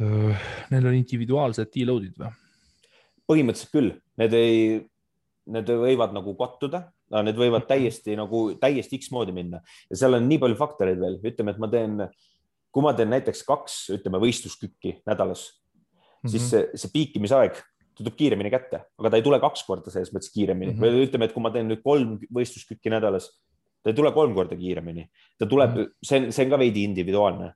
[SPEAKER 1] neil on individuaalsed deload'id või?
[SPEAKER 2] Põhimõtteliselt küll. Need võivad nagu kattuda, need võivad täiesti X moodi minna ja seal on nii palju faktoreid veel. Ütleme, et kui ma teen näiteks 2 võistluskükki nädalas, siis see piikimisaeg tuleb kiiremini kätte, aga ta ei tule 2 korda selles mõttes kiiremini. Või ütleme, et kui ma teen nüüd 3 võistluskükki nädalas, ta ei tule 3 korda kiiremini. Ta tuleb, see on ka veidi individuaalne,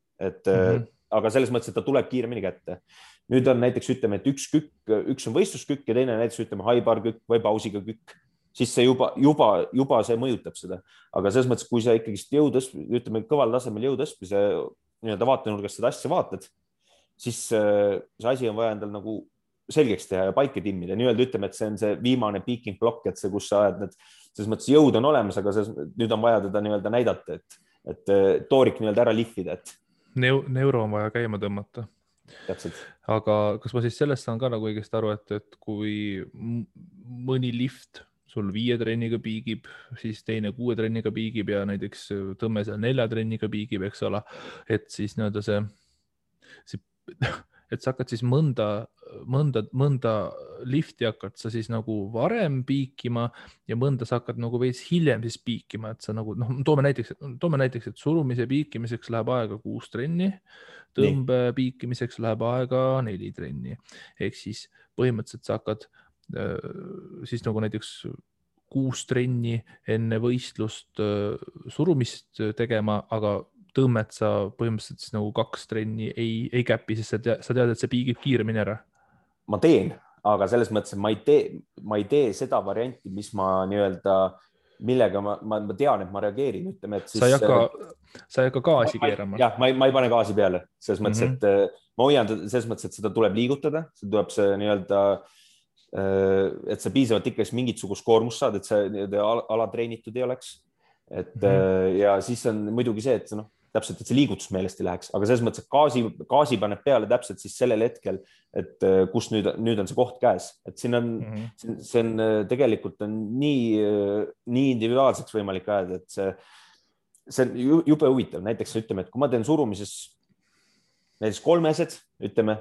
[SPEAKER 2] aga selles mõttes, et ta tuleb kiiremini kätte. Nüüd on näiteks, ütleme, et üks on võistluskükk ja teine näiteks, ütleme, haibar kükk või pausiga kükk. Siis see juba see mõjutab seda. Aga selles mõttes, kui sa ikkagi ütleme, kõval tasemel jõutõstmise nii-öelda vaatenurgast seda asja vaatad, siis see asi on vaja endal nagu selgeks teha ja paika timmida. Nii-öelda ütleme, et see on see viimane peaking block, et see, kus sa ajad selles mõttes jõud on olemas, aga nüüd on vaja teda nii-öelda näidata, et toorik nii-öelda ära lihvida.
[SPEAKER 1] Neuro on vaja käima tõmmata.
[SPEAKER 2] Täpselt.
[SPEAKER 1] Aga kas ma siis sellest saan ka nagu õigesti aru, et kui mõni lift sul 5 trenniga piigib, siis teine 6 trenniga piigib ja näiteks tõmme seal 4 trenniga piigib, eks ole, et siis nii-öelda et sa hakkad siis mõnda lifti hakkad sa siis nagu varem piikima ja mõnda sa hakkad nagu veits hiljem siis piikima, et sa nagu, toome näiteks, et surumise piikimiseks läheb aega 6 trenni, tõmbe piikimiseks läheb aega 4 trenni. Ehk siis põhimõtteliselt sa hakkad siis nagu näiteks 6 trenni enne võistlust surumist tegema, aga tõmmet sa põhimõtteliselt siis nagu 2 trenni ei käpi, sest sa tead, et see piigib kiiremini ära.
[SPEAKER 2] Ma teen, aga selles mõttes, et ma ei tee seda varianti, mis ma nii-öelda, millega ma tean, et ma reageerin, ütleme, et siis...
[SPEAKER 1] Sa ei hakka gaasi keerama.
[SPEAKER 2] Jah, ma ei pane gaasi peale, selles mõttes, et ma hoian selles mõttes, et seda tuleb liigutada, see tuleb see nii-öelda, et sa piisavalt ikka mingisugust koormust saad, et see alatreenitud ei oleks. Ja siis on muidugi see, et täpselt, et see liigutus meelest ei läheks, aga selles mõttes, et gaasi paneb peale täpselt siis sellel hetkel, et kus nüüd on see koht käes, et siin on, see on tegelikult on nii individuaalseks võimalik ajada, et see on jube huvitav. Näiteks ütleme, et kui ma teen surumises näiteks 3-esed, ütleme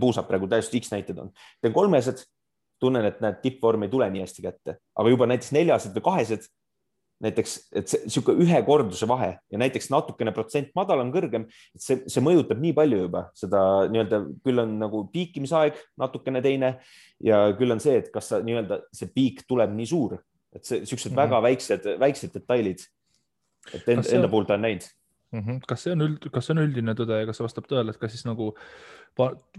[SPEAKER 2] puusab praegu täiesti X näited on, teen 3-esed, tunnen, et need tippvorm ei tule nii hästi kätte, aga juba näiteks 4-esed või 2-esed, näiteks, et siuke 1 korduse vahe ja näiteks natukene protsent madalam, kõrgem, et see mõjutab nii palju juba seda nii-öelda, küll on nagu piikimisaeg natukene teine ja küll on see, et kas nii-öelda see piik tuleb nii suur, et see siuksed väga väiksed detailid, et enda puhul ta on näinud.
[SPEAKER 1] Kas see on üldine tõde ja kas see vastab tõele, et kas siis nagu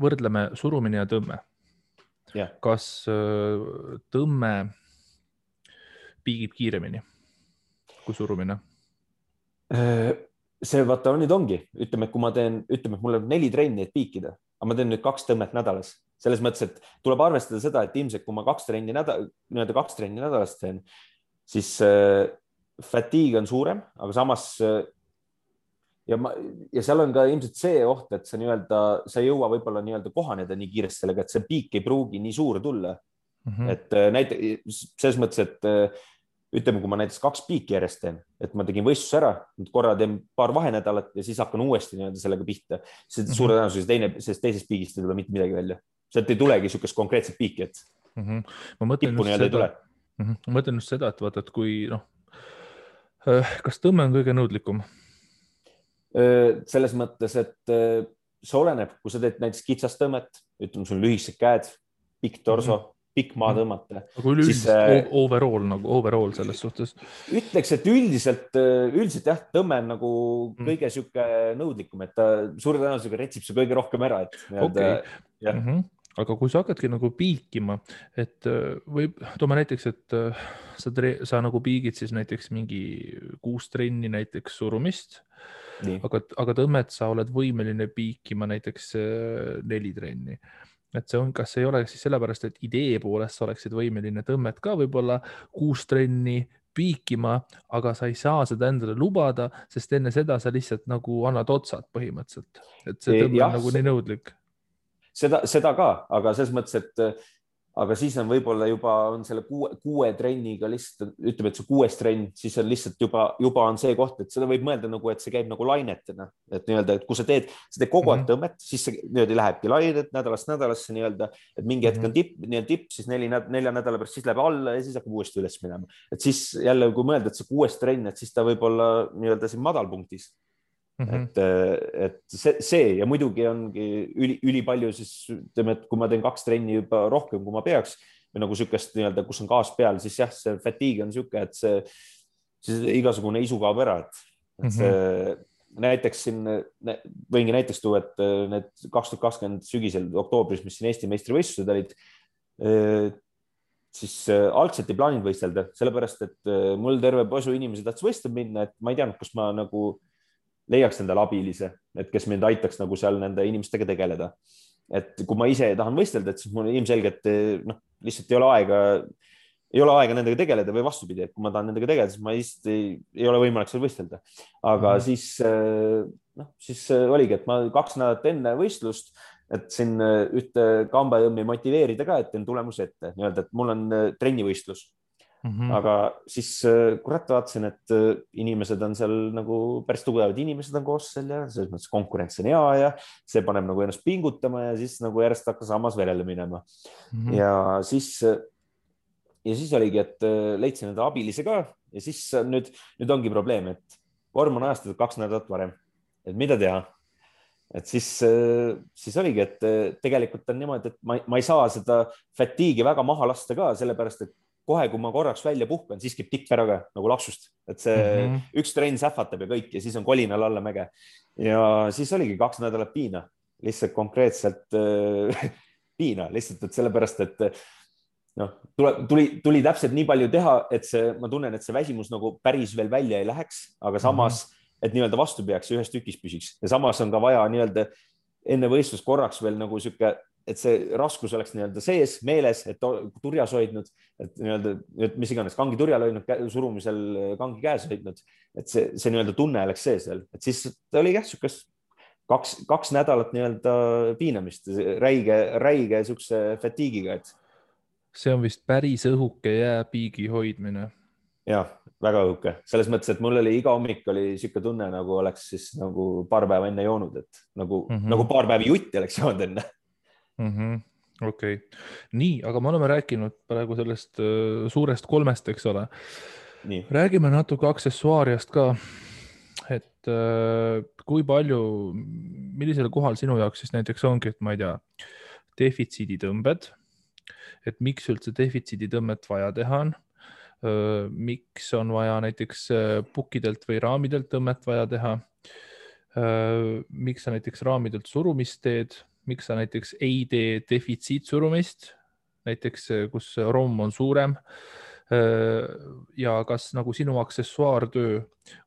[SPEAKER 1] võrdleme surumine ja tõmme?
[SPEAKER 2] Ja.
[SPEAKER 1] Kas tõmme piigib kiiremini kui surumine?
[SPEAKER 2] See vaata nüüd ongi, ütleme, kui ma teen, ütleme, et mul on 4 trenni, et piikida, aga ma teen nüüd 2 tõmmet nädalas. Selles mõttes, et tuleb arvestada seda, et ilmselt kui ma 2 trenni nädalas teen, siis fatigue on suurem, aga samas ja seal on ka ilmselt see oht, et sa ei jõua võib-olla nii-öelda kohaneda nii kiiresti sellega, et see piik ei pruugi nii suur tulla. Et näiteks selles mõttes, et ütleme, kui ma näiteks 2 piiki järjest teen, et ma tegin võistluse ära, korra teen paar vahenädalat ja siis hakkan uuesti nii-öelda sellega pihta. Suure tõenäosus teisest piigist ei tule mitte midagi välja. Sealt ei tulegi niisugust konkreetset piiki, et tippu nii-öelda ei tule.
[SPEAKER 1] Ma mõtlen just seda, et vaata, et kui kas tõmme on kõige nõudlikum?
[SPEAKER 2] Selles mõttes, et see oleneb, kui sa teed näiteks kitsast tõmmet, ütleme, sul lühikesed käed, pikk torso, pikk maa tõmmata.
[SPEAKER 1] Aga üleüldiselt overall selles suhtes.
[SPEAKER 2] Ütleks, et üldiselt jah, tõmme on nagu kõige sihuke nõudlikum, et ta suure tõenäosusega retsib see kõige rohkem ära.
[SPEAKER 1] Aga kui sa hakkadki nagu piikima, et toome näiteks, et sa nagu piigid siis näiteks mingi 6 trenni näiteks surumist, aga tõmmet sa oled võimeline piikima näiteks 4 trenni. Et see on, kas ei ole siis sellepärast, et idee poolest sa oleksid võimeline tõmmet ka võib-olla 6 trenni piikima, aga sa ei saa seda endale lubada, sest enne seda sa lihtsalt nagu annad otsad põhimõtteliselt. Et see tõmme on nagu nii nõudlik.
[SPEAKER 2] Seda ka, aga selles mõttes, et aga siis on võib-olla juba on selle 6 trenniga lihtsalt, ütleme, et see 6. trenn, siis on lihtsalt juba on see koht, et seda võib mõelda nagu, et see käib nagu lainetena, et nii-öelda, et kui sa teed kogu aeg tõmmet, siis see nii-öelda lähebki lainet nädalast nädalasse nii-öelda, et mingi hetk on tipp, siis 4 nädala pärast siis läheb alla ja siis hakkab uuesti üles minema. Et siis jälle, kui mõelda, et see 6. trenn, et siis ta võib olla nii-öelda siin madalpunktis. Et see ja muidugi ongi ülipalju siis ütleme, et kui ma teen 2 trenni juba rohkem, kui ma peaks või nagu sükest nii-öelda, kus on gaas peal, siis jah, see fatigue on süke, et siis igasugune isu kaob ära, et see näiteks siin võingi näiteks tuua, et need 2020 sügisel oktoobris, mis siin Eesti meistrivõistlused olid, siis algselt ei plaaninud võistelda, sellepärast, et mul terve posu inimesi tahtis võistlema minna, et ma ei teadnud, kus ma nagu leiaks endale abilise, et kes mind aitaks nagu seal nende inimestega tegeleda. Et kui ma ise tahan võistelda, et siis mul ilmselgelt lihtsalt ei ole aega nendega tegeleda või vastupidi, et kui ma tahan nendega tegeleda, siis ma lihtsalt ei ole võimalik seal võistelda. Aga siis oligi, et ma 2 nädalat enne võistlust, et siin ühte kambajõmmi motiveerida ka, et teen tulemuse ette, nii-öelda, et mul on trennivõistlus. Aga siis kurat vaatasin, et inimesed on seal nagu päris tugevad inimesed on koos seal ja selles mõttes konkurents on hea ja see paneb nagu ennast pingutama ja siis nagu järjest hakkas hammas verele minema. Ja siis oligi, et leidsin enda abilise ka ja siis nüüd ongi probleem, et vorm on ajastatud 2 nädalat varem, et mida teha. Et siis oligi, et tegelikult on niimoodi, et ma ei saa seda fatigue'i väga maha lasta ka, sellepärast, et kohe, kui ma korraks välja puhkan, siis käib tikk ära ka nagu lapsust, et see üks trenn sähvatab ja kõik ja siis on kolinal alla mäge. Ja siis oligi 2 nädalat piina, lihtsalt konkreetselt piina, lihtsalt, et sellepärast, et tuli täpselt nii palju teha, et ma tunnen, et see väsimus nagu päris veel välja ei läheks, aga samas, et nii-öelda vastu peaks ja ühes tükis püsiks ja samas on ka vaja nii-öelda enne võistlust korraks veel nagu sihuke, et see raskus oleks nii-öelda sees meeles, et turjas hoidnud, et nii-öelda, mis iganes kangi turjal hoidnud, surumisel kangi käes hoidnud, et see nii-öelda tunne oleks sees veel, et siis oli jah, sükest 2 nädalat nii-öelda piinamist, räige sükse fatigue'iga, et.
[SPEAKER 1] See on vist päris õhuke jääpiigi hoidmine.
[SPEAKER 2] Jah, väga õhuke. Selles mõttes, et mul oli iga hommik oli siuke tunne, nagu oleks siis nagu paar päeva enne joonud, et nagu paar päeva jutti oleks joonud enne.
[SPEAKER 1] Okei. Nii, aga me oleme rääkinud praegu sellest suurest 3, eks ole. Nii. Räägime natuke aksessuaariast ka, et kui palju, millisel kohal sinu jaoks siis näiteks ongi, et ma ei tea, defitsiiditõmbed, et miks üldse defitsiiditõmmet vaja teha on, miks on vaja näiteks pukkidelt või raamidelt tõmmet vaja teha, miks sa näiteks raamidelt surumist teed, miks sa näiteks ei tee defitsiitsurumist, näiteks kus romm on suurem ja kas nagu sinu aksessuaartöö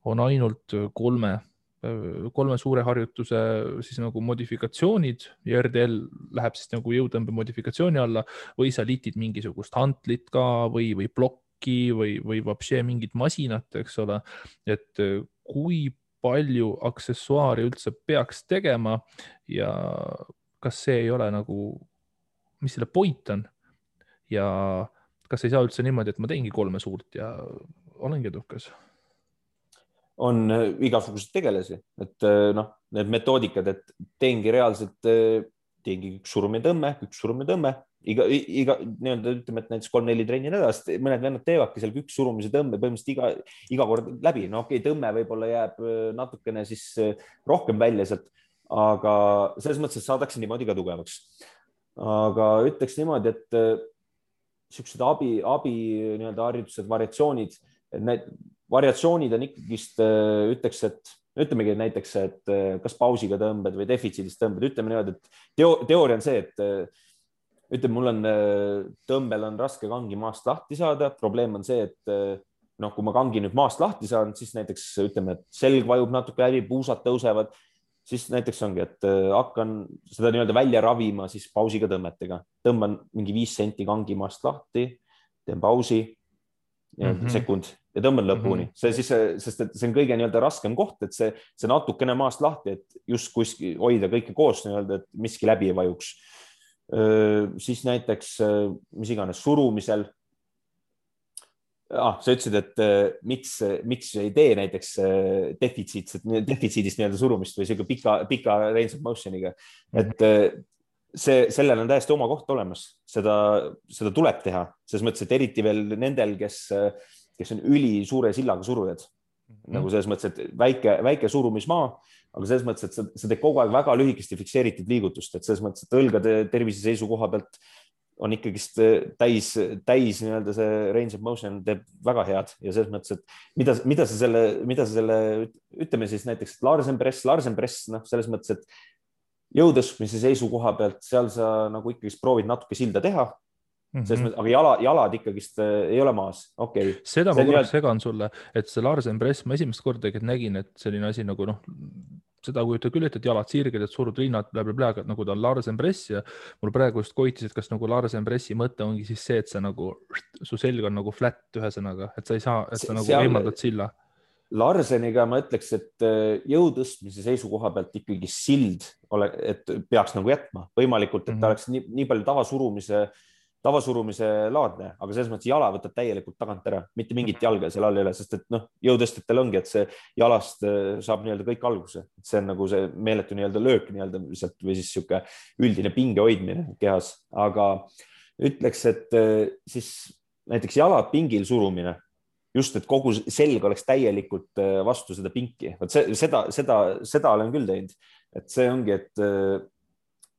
[SPEAKER 1] on ainult 3 suure harjutuse siis nagu modifikatsioonid ja RDL läheb siis nagu jõutõmbe modifikatsiooni alla või sa litid mingisugust hantlit ka või plokki või vapše mingit masinat, eks ole, et kui palju aksessuaari üldse peaks tegema ja kas see ei ole nagu, mis selle point on ja kas ei saa üldse niimoodi, et ma teengi 3 suurt ja olengi edukas?
[SPEAKER 2] On igasugused tegelasi, et need metoodikad, et teengi reaalselt, teengi üks surumine tõmme, iga nii-öelda ütleme, et näiteks 3-4 trenni nädalast, mõned vennad teevadki seal üks surumise tõmme põhimõtteliselt iga kord läbi. No okei, tõmme võib-olla jääb natukene siis rohkem välja sealt, aga selles mõttes, et saadakse niimoodi ka tugevaks. aga ütleks niimoodi, et siuksed abi nii-öelda harjutused, variatsioonid, et need variatsioonid on ikkagist, ütleks, et ütlemegi näiteks, et kas pausiga tõmbed või defitsiidist tõmbed, ütleme niimoodi, et teooria on see, et ütleme, mul on tõmbel on raske kangi maast lahti saada. probleem on see, et noh, kui ma kangi nüüd maast lahti saan, siis näiteks ütleme, et selg vajub natuke läbi, puusad tõusevad, siis näiteks ongi, et hakkan seda nii-öelda välja ravima siis pausiga tõmmetega. Tõmban mingi 5 senti kangi maast lahti, teen pausi, sekund ja tõmban lõpuni. See siis, sest et see on kõige nii-öelda raskem koht, et see natukene maast lahti, et just kuskil hoida kõike koos nii-öelda, et miski läbi ei vajuks. Siis näiteks, mis iganes surumisel. Sa ütlesid, et miks ei tee näiteks defitsiidist nii-öelda surumist või siuke pika range of motion'iga, et sellel on täiesti oma koht olemas, seda tuleb teha, selles mõttes, et eriti veel nendel, kes on üli suure sillaga surujad, nagu selles mõttes, et väike surumismaa, aga selles mõttes, et sa teed kogu aeg väga lühikesti fikseeritud liigutust, et selles mõttes, et õlgade tervise seisukoha pealt on ikkagist täis nii-öelda see range of motion teeb väga head ja selles mõttes, et mida sa selle, ütleme siis näiteks Larsen press, noh, selles mõttes, et jõutõstmise seisukoha pealt seal sa nagu ikkagist proovid natuke silda teha. Mõttes, aga jalad ikkagist ei ole maas. Okay.
[SPEAKER 1] Seda ma korraks segan sulle, et see Larsen press, ma esimest korda nägin, et selline asi nagu noh, seda kujuta küll, et jalad sirged, et surud rinnad, aga nagu ta on Larsen press ja mul praegu just koitis, et kas nagu Larsen pressi mõte ongi siis see, et sa nagu, su selg on nagu flat ühesõnaga, et sa ei saa, et sa nagu eemaldad silla.
[SPEAKER 2] Larseniga ma ütleks, et jõutõstmise seisukoha pealt ikkagi sild, et peaks nagu jätma võimalikult, et ta oleks nii palju tavasurumise laadne, aga selles mõttes jala võtab täielikult tagant ära, mitte mingit jalga seal all ei ole, sest et noh, jõutõstjatel ongi, et see jalast saab nii-öelda kõik alguse. See on nagu see meeletu nii-öelda löök nii-öelda või siis sihuke üldine pinge hoidmine kehas, aga ütleks, et siis näiteks jalad pingil surumine, just, et kogu selg oleks täielikult vastu seda pinki. Seda olen küll teinud, et see ongi, et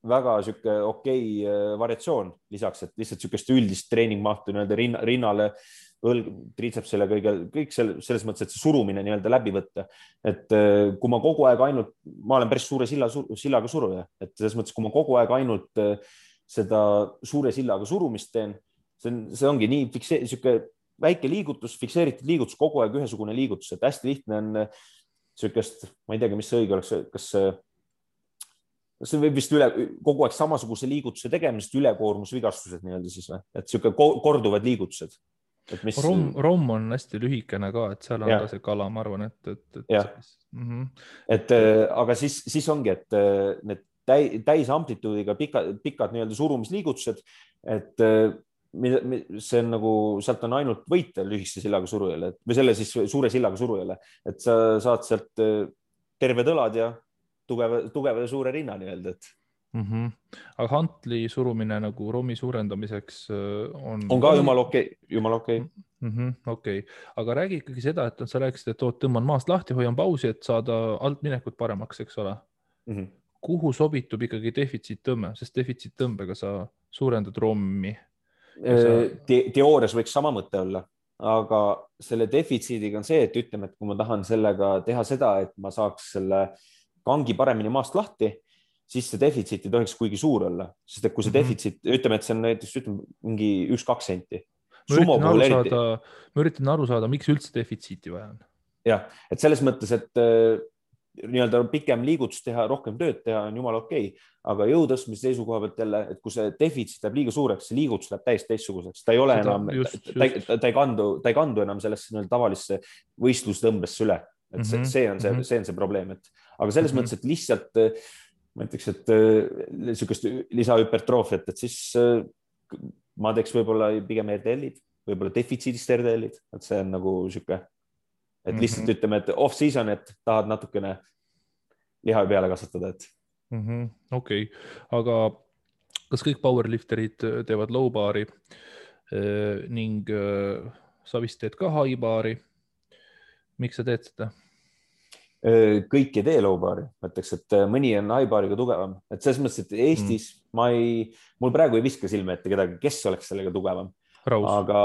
[SPEAKER 2] väga sihuke okei variatsioon lisaks, et lihtsalt sihukest üldist treeningmahtu nii-öelda rinnale, triitsepsile, kõik selles mõttes, et see surumine nii-öelda läbi võtta. Et kui ma kogu aeg ainult, ma olen päris suure sillaga suruja, et selles mõttes, kui ma kogu aeg ainult seda suure sillaga surumist teen, see ongi nii sihuke väike liigutus, fikseeritud liigutus, kogu aeg ühesugune liigutus, et hästi lihtne on sihukest, ma ei teagi, mis see õige oleks, kas see võib vist kogu aeg samasuguse liigutuse tegemisest ülekoormusvigastused nii-öelda siis või, et sihuke korduvad liigutused.
[SPEAKER 1] Romm on hästi lühikene ka, et seal on ka see kala, ma arvan,
[SPEAKER 2] et aga siis ongi, et need täisamplituudiga pikad nii-öelda surumisliigutused, et see on nagu, sealt on ainult võita lühikese sillaga surujale või selle siis suure sillaga surujale, et sa saad sealt terved õlad ja tugeva ja suure rinna nii-öelda, et.
[SPEAKER 1] Aga hantli surumine nagu rommi suurendamiseks on
[SPEAKER 2] ka jumala okei.
[SPEAKER 1] Okei, aga räägi ikkagi seda, et sa rääkisid, et tõmban maast lahti, hoian pausi, et saada altminekut paremaks, eks ole. Kuhu sobitub ikkagi defitsiittõmme, sest defitsiittõmbega sa suurendad rommi?
[SPEAKER 2] Teoorias võiks sama mõte olla, aga selle defitsiidiga on see, et ütleme, et kui ma tahan sellega teha seda, et ma saaks selle kangi paremini maast lahti, siis see defitsiit ei tohiks kuigi suur olla, sest et kui see defitsiit, ütleme, et see on näiteks mingi 1-2 senti.
[SPEAKER 1] Ma üritan aru saada, miks üldse defitsiiti vaja on.
[SPEAKER 2] Jah, et selles mõttes, et nii-öelda pikem liigutus teha, rohkem tööd teha on jumala okei, aga jõutõstmise seisukoha pealt jälle, et kui see defitsiit läheb liiga suureks, see liigutus läheb täiesti teistsuguseks, ta ei ole enam, ta ei kandu enam sellesse tavalisse võistlustõmbesse üle. Et see on see probleem, aga selles mõttes, et lihtsalt ma ütleks, et niisugust lisahüpertroofiat, et siis ma teeks võib-olla pigem RDL-id, võib-olla defitsiidist RDL-id, et see on nagu sihuke, et lihtsalt ütleme, et off-season, et tahad natukene liha peale kasvatada, et.
[SPEAKER 1] Okei, aga kas kõik powerlifterid teevad low bari ning sa vist teed ka high bari? Miks sa teed seda?
[SPEAKER 2] kõik ei tee low bar'i, ma ütleks, et mõni on high bar'iga tugevam, et selles mõttes, et Eestis mul praegu ei viska silme ette kedagi, kes oleks sellega tugevam, aga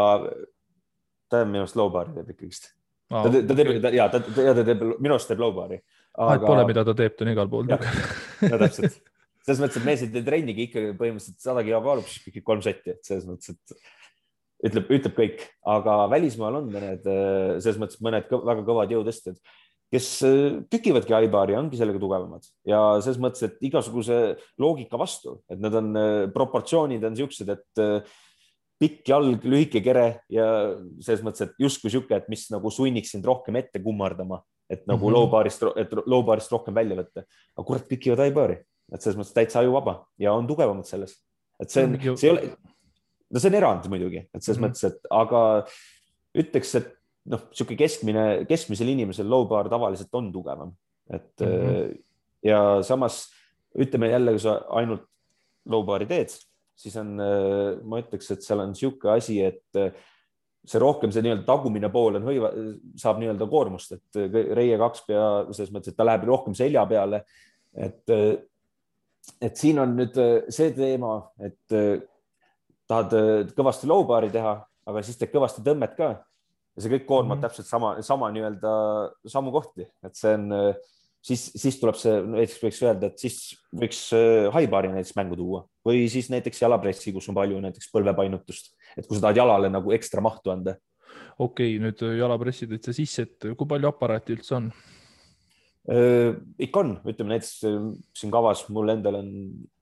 [SPEAKER 2] ta minu arust low bar'i teeb ikkagist. Ta teeb, minu arust teeb low bar'i.
[SPEAKER 1] Et pole, mida ta teeb, ta on igal pool tugev.
[SPEAKER 2] No täpselt. Selles mõttes, et mees ei tee trennigi ikkagi põhimõtteliselt 100 kilo kaalub, siis 3 setti, et selles mõttes, et ütleb kõik, aga välismaal on need selles mõttes mõned väga kõvad jõutõstjad, kes tükivadki high bar'i, ongi sellega tugevamad ja selles mõttes, et igasuguse loogika vastu, et need on proportsioonid on siuksed, et pikk jalg, lühike kere ja selles mõttes, et justkui siuke, et mis nagu sunniks sind rohkem ette kummardama, et nagu low bar'ist rohkem välja võtta. Aga kurat, tükivad high bar'i, et selles mõttes täitsa ajuvaba ja on tugevamad selles. Et see ei ole, no see on erand muidugi, et selles mõttes, et aga ütleks, et noh, siuke keskmisel inimesel low bar tavaliselt on tugevam, et ja samas ütleme jälle, kui sa ainult low bar'i teed, siis on, ma ütleks, et seal on siuke asi, et see rohkem see nii-öelda tagumine pool on saab nii-öelda koormust, et reie 2 pea selles mõttes, et ta läheb rohkem selja peale, et siin on nüüd see teema, et tahad kõvasti low bar'i teha, aga siis teed kõvasti tõmmet ka. Ja see kõik koormab täpselt sama nii-öelda samu kohti, et see on, siis tuleb see, näiteks võiks öelda, et siis võiks high bar'i näiteks mängu tuua või siis näiteks jalapressi, kus on palju näiteks põlvepainutust, et kui sa tahad jalale nagu ekstra mahtu anda.
[SPEAKER 1] Okei, nüüd jalapressi tõid sa sisse, et kui palju aparaati üldse on?
[SPEAKER 2] Ikka on, ütleme näiteks siin kavas mul endal on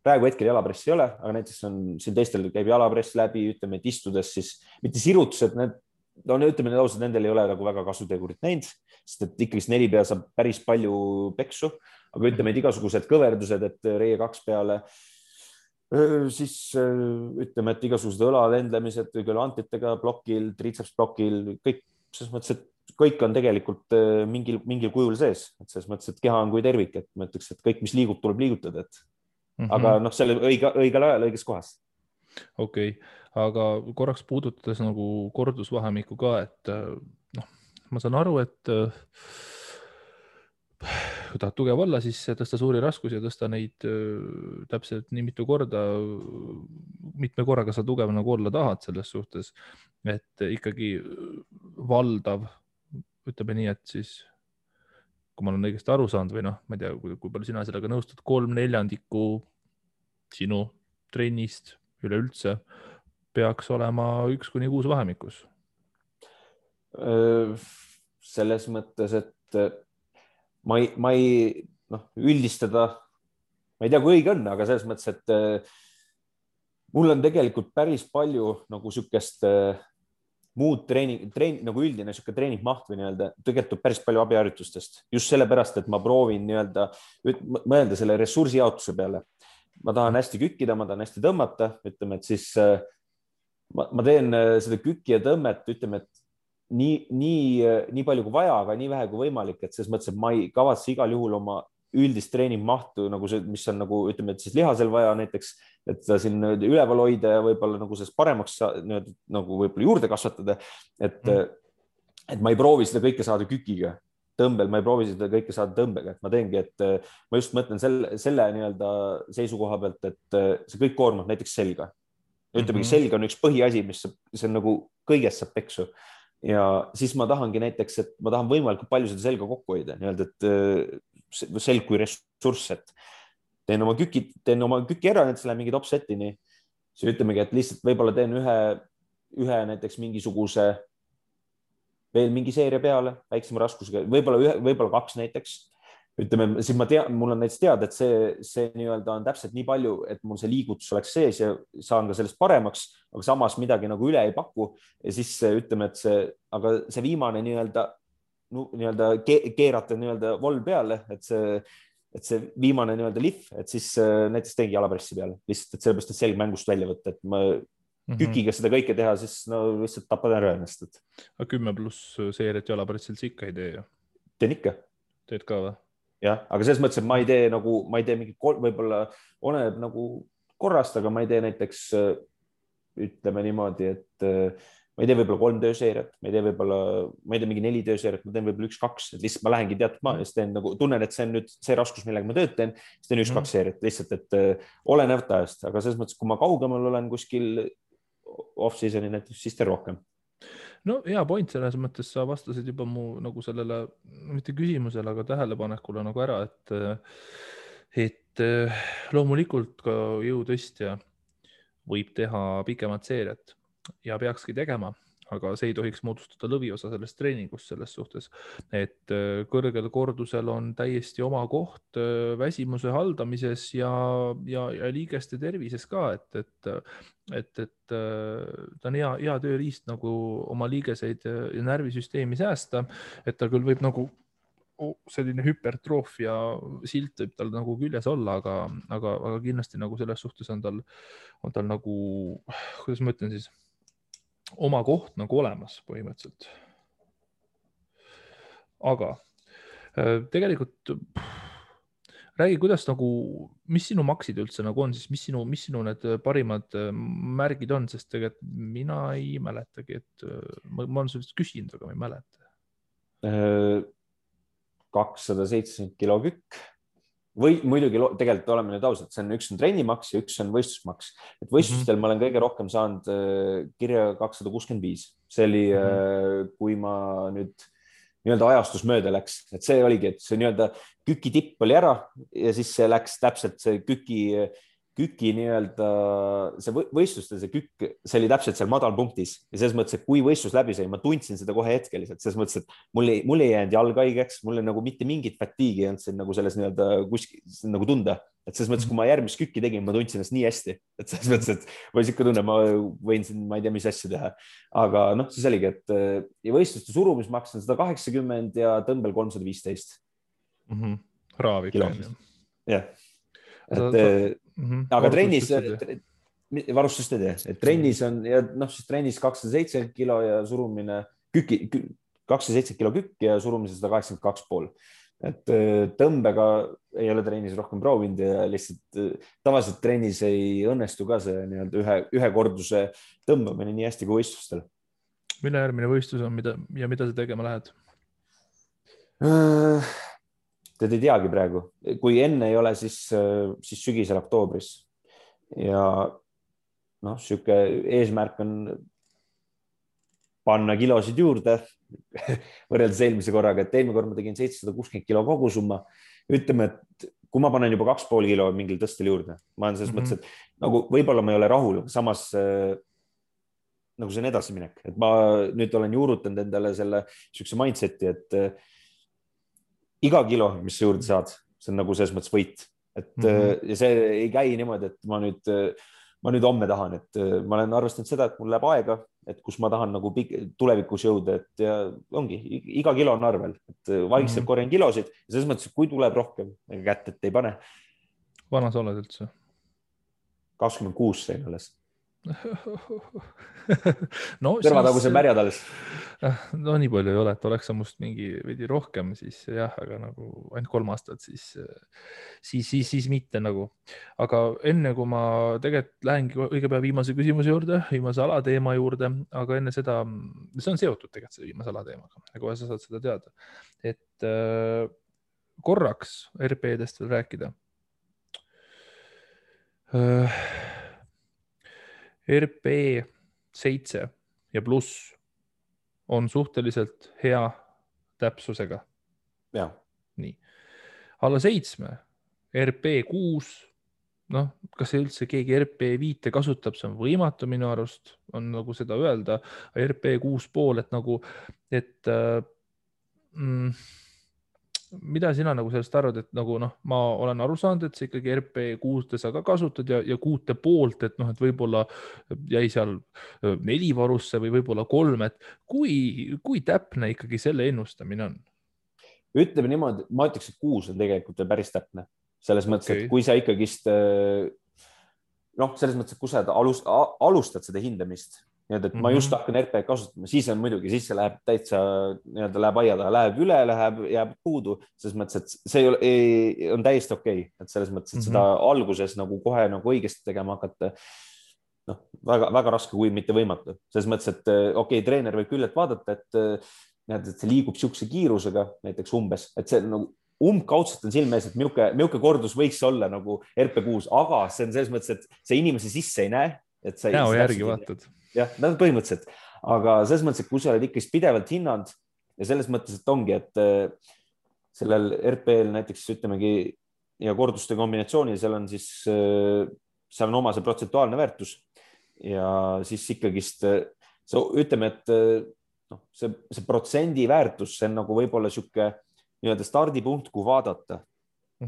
[SPEAKER 2] praegu hetkel jalapressi ei ole, aga näiteks on siin teistel käib jalapress läbi, ütleme, et istudes siis mitte sirutused, no ütleme ausalt, nendel ei ole nagu väga kasutegurit näinud, sest et ikkagi 4 pea saab päris palju peksu, aga ütleme, et igasugused kõverdused, et reie 2 peale, siis ütleme, et igasugused õlalendlemised antitega blokil, triceps blokil, kõik selles mõttes, et kõik on tegelikult mingil kujul sees, et selles mõttes, et keha on kui tervik, et ma ütleks, et kõik, mis liigub, tuleb liigutada, et aga noh, selle õigel ajal õiges kohas.
[SPEAKER 1] Okei, aga korraks puudutades nagu kordusvahemikku ka, et noh, ma saan aru, et kui tahad tugev olla, siis tõsta suuri raskusi ja tõsta neid täpselt nii mitu korda, mitme korraga sa tugev nagu olla tahad selles suhtes, et ikkagi valdav, ütleme nii, et siis kui ma olen õigesti aru saanud või noh, ma ei tea, kui palju sina sellega nõustud, 3/4 sinu trennist üleüldse peaks olema 1-6 vahemikus.
[SPEAKER 2] Selles mõttes, et ma ei üldistada, ma ei tea, kui õige on, aga selles mõttes, et mul on tegelikult päris palju nagu sükest muud nagu üldine siuke treeningmaht või nii-öelda tegelikult päris palju abiharjutustest. Just sellepärast, et ma proovin nii-öelda mõelda selle ressursijaotuse peale. Ma tahan hästi kükkida, ma tahan hästi tõmmata, ütleme, et siis ma teen seda kükki ja tõmmet, ütleme, et nii palju kui vaja, aga nii vähe kui võimalik, et selles mõttes, et ma ei kavatse igal juhul oma üldist treeningmahtu, nagu see, mis on nagu, ütleme, et siis lihasel vaja näiteks, et ta siin üleval hoida ja võib-olla nagu sellest paremaks nagu võib-olla juurde kasvatada, et ma ei proovi seda kõike saada kükiga. Tõmbel, ma ei proovi seda kõike saada tõmbega, et ma teengi, et ma just mõtlen selle nii-öelda seisukoha pealt, et see kõik koormab näiteks selga. Ütlemegi, selg on üks põhiasi, mis see on nagu kõigest saab peksu. Ja siis ma tahangi näiteks, et ma tahan võimalikult palju seda selga kokku hoida, nii-öelda, et selg kui ressurss, et teen oma küki ära, näiteks läheb mingi top-setini, siis ütlemegi, et lihtsalt võib-olla teen ühe näiteks mingisuguse veel mingi seeria peale, väiksema raskusega, võib-olla 2 näiteks. Ütleme, siis mul on näiteks teada, et see nii-öelda on täpselt nii palju, et mul see liigutus oleks sees ja saan ka sellest paremaks, aga samas midagi nagu üle ei paku. Ja siis ütleme, et see viimane nii-öelda keerata nii-öelda voll peale, et see viimane nii-öelda lihv, et siis näiteks teengi jalapressi peale. Lihtsalt, et sellepärast, et selg mängust välja võtta, et ma kükiga seda kõike teha, siis lihtsalt tapad ära ennast.
[SPEAKER 1] 10+ seeriat jalapressilt ikka ei tee ju?
[SPEAKER 2] Teen ikka.
[SPEAKER 1] Teed ka või?
[SPEAKER 2] Jah, aga selles mõttes, et ma ei tee mingi, võib-olla oleneb nagu korrast, aga ma ei tee näiteks, ütleme niimoodi, et ma ei tee võib-olla 3 tööseeriat, ma ei tee võib-olla, ma ei tee mingi 4 tööseeriat, ma teen võib-olla 1-2, et lihtsalt ma lähengi teatud maa ja siis teen nagu, tunnen, et see on nüüd see raskus, millega ma tööd teen, siis teen 1-2 seeriat lihtsalt, et olenevalt ajast, aga selles mõttes, kui ma kaugemal olen kuskil off-season'i näiteks, siis teen rohkem.
[SPEAKER 1] No hea point, selles mõttes sa vastasid juba mu nagu sellele, mitte küsimusele, aga tähelepanekule nagu ära, et loomulikult ka jõutõstja võib teha pikemat seeriat ja peakski tegema, aga see ei tohiks moodustada lõviosa sellest treeningust selles suhtes, et kõrgel kordusel on täiesti oma koht väsimuse haldamises ja liigeste tervises ka, et ta on hea tööriist nagu oma liigeseid ja närvisüsteemi säästa, et ta küll võib nagu selline hüpertroofia silt võib tal nagu küljes olla, aga kindlasti nagu selles suhtes on tal nagu, kuidas ma ütlen siis, oma koht nagu olemas põhimõtteliselt. Aga tegelikult räägi, kuidas nagu, mis sinu maksid üldse nagu on, siis mis sinu need parimad märgid on, sest tegelikult mina ei mäletagi, et ma olen sellest küsinud, aga ma ei mäleta.
[SPEAKER 2] 270 kilo kükk või muidugi tegelikult oleme nüüd ausad, see on üks on trennimaks ja üks on võistlusmaks, et võistlustel ma olen kõige rohkem saanud kirja 265, see oli kui ma nüüd nii-öelda ajastus mööda läks, et see oligi, et see nii-öelda küki tipp oli ära ja siis see läks täpselt see küki nii-öelda see võistlustel, see kükk, see oli täpselt seal madalpunktis ja selles mõttes, et kui võistlus läbi sai, ma tundsin seda kohe hetkeliselt, selles mõttes, et mul ei jäänud jalg haigeks, mul nagu mitte mingit fatiigi ei olnud siin nagu selles nii-öelda kuskil nagu tunda, et selles mõttes, kui ma järgmist kükki tegin, ma tundsin ennast nii hästi, et selles mõttes, et ma ikka tunnen, ma võin siin, ma ei tea, mis asja teha, aga noh, siis oligi, et ja võistluste surumismaks on 180 ja tõmbel 315
[SPEAKER 1] Raav ikka.
[SPEAKER 2] Jah, et aga trennis varustust ei tee, et trennis on ja noh, siis trennis 270 kilo ja surumine 270 kilo kükk ja surumise 182,5. Et tõmbega ei ole trennis rohkem proovinud ja lihtsalt tavaliselt trennis ei õnnestu ka see nii-öelda ühe korduse tõmbamine nii hästi kui võistlustel.
[SPEAKER 1] Mille järgmine võistlus on ja mida sa tegema lähed?
[SPEAKER 2] Tead ei teagi praegu, kui enne ei ole, siis sügisel oktoobris ja noh, sihuke eesmärk on panna kilosid juurde võrreldes eelmise korraga, et eelmine kord ma tegin 760 kilo kogusumma. Ütleme, et kui ma panen juba 2,5 kilo mingil tõstel juurde, ma olen selles mõttes, et nagu võib-olla ma ei ole rahul, samas nagu see on edasiminek, et ma nüüd olen juurutanud endale selle siukse mindseti, et iga kilo, mis sa juurde saad, see on nagu selles mõttes võit, et ja see ei käi niimoodi, et ma nüüd homme tahan, et ma olen arvestanud seda, et mul läheb aega, et kus ma tahan nagu tulevikus jõuda, et ja ongi, iga kilo on arvel, et vaikselt korjan kilosid ja selles mõttes, kui tuleb rohkem, ega kätt, et ei pane.
[SPEAKER 1] Vana sa oled üldse?
[SPEAKER 2] 26 sain alles.
[SPEAKER 1] No,
[SPEAKER 2] kõrvataguse märjad alles.
[SPEAKER 1] No nii palju ei ole, et oleks sa must mingi veidi rohkem, siis jah, aga nagu ainult 3 aastat, siis mitte nagu. Aga enne kui ma tegelikult lähengi õige pea viimase küsimuse juurde, viimase alateema juurde, aga enne seda, see on seotud tegelikult selle viimase alateemaga, kohe sa saad seda teada, et korraks RP-dest veel rääkida. RP 7 ja pluss on suhteliselt hea täpsusega.
[SPEAKER 2] Ja.
[SPEAKER 1] Nii. Alla 7, RP 6, noh, kas üldse keegi RP 5 kasutab, see on võimatu minu arust, on nagu seda öelda, RP 6,5, et nagu, et mida sina nagu sellest arvad, et nagu noh, ma olen aru saanud, et see ikkagi RP 6 sa ka kasutad ja 6,5, et noh, et võib-olla jäi seal 4 varusse või võib-olla 3, et kui täpne ikkagi selle ennustamine on?
[SPEAKER 2] Ütleme niimoodi, ma ütleks, et 6 on tegelikult päris täpne. Selles mõttes, et kui sa ikkagist noh, selles mõttes, et kui sa alustad seda hindamist, et ma just hakkan RP kasutama, siis on muidugi, siis see läheb täitsa, läheb aia taha, läheb üle, jääb puudu, selles mõttes, et see on täiesti okei, et selles mõttes, et seda alguses nagu kohe nagu õigesti tegema hakata. väga raske, kui mitte võimatu. Selles mõttes, et okei, treener võib küll, et vaadata, et see liigub siukse kiirusega näiteks umbes, et see nagu umbkaudselt on silme ees, et milline kordus võiks olla nagu RP6, aga see on selles mõttes, et see inimese sisse ei näe. Et sa
[SPEAKER 1] näo järgi vaatad.
[SPEAKER 2] Jah, põhimõtteliselt. Aga selles mõttes, et kui sa oled ikkagi pidevalt hinnanud ja selles mõttes, et ongi, et sellel RP-l näiteks ütlemegi ja korduste kombinatsioonil, seal on oma see protsentuaalne väärtus ja siis ikkagist ütleme, et see protsendi väärtus, see on nagu võib-olla sihuke nii-öelda stardipunkt, kui vaadata,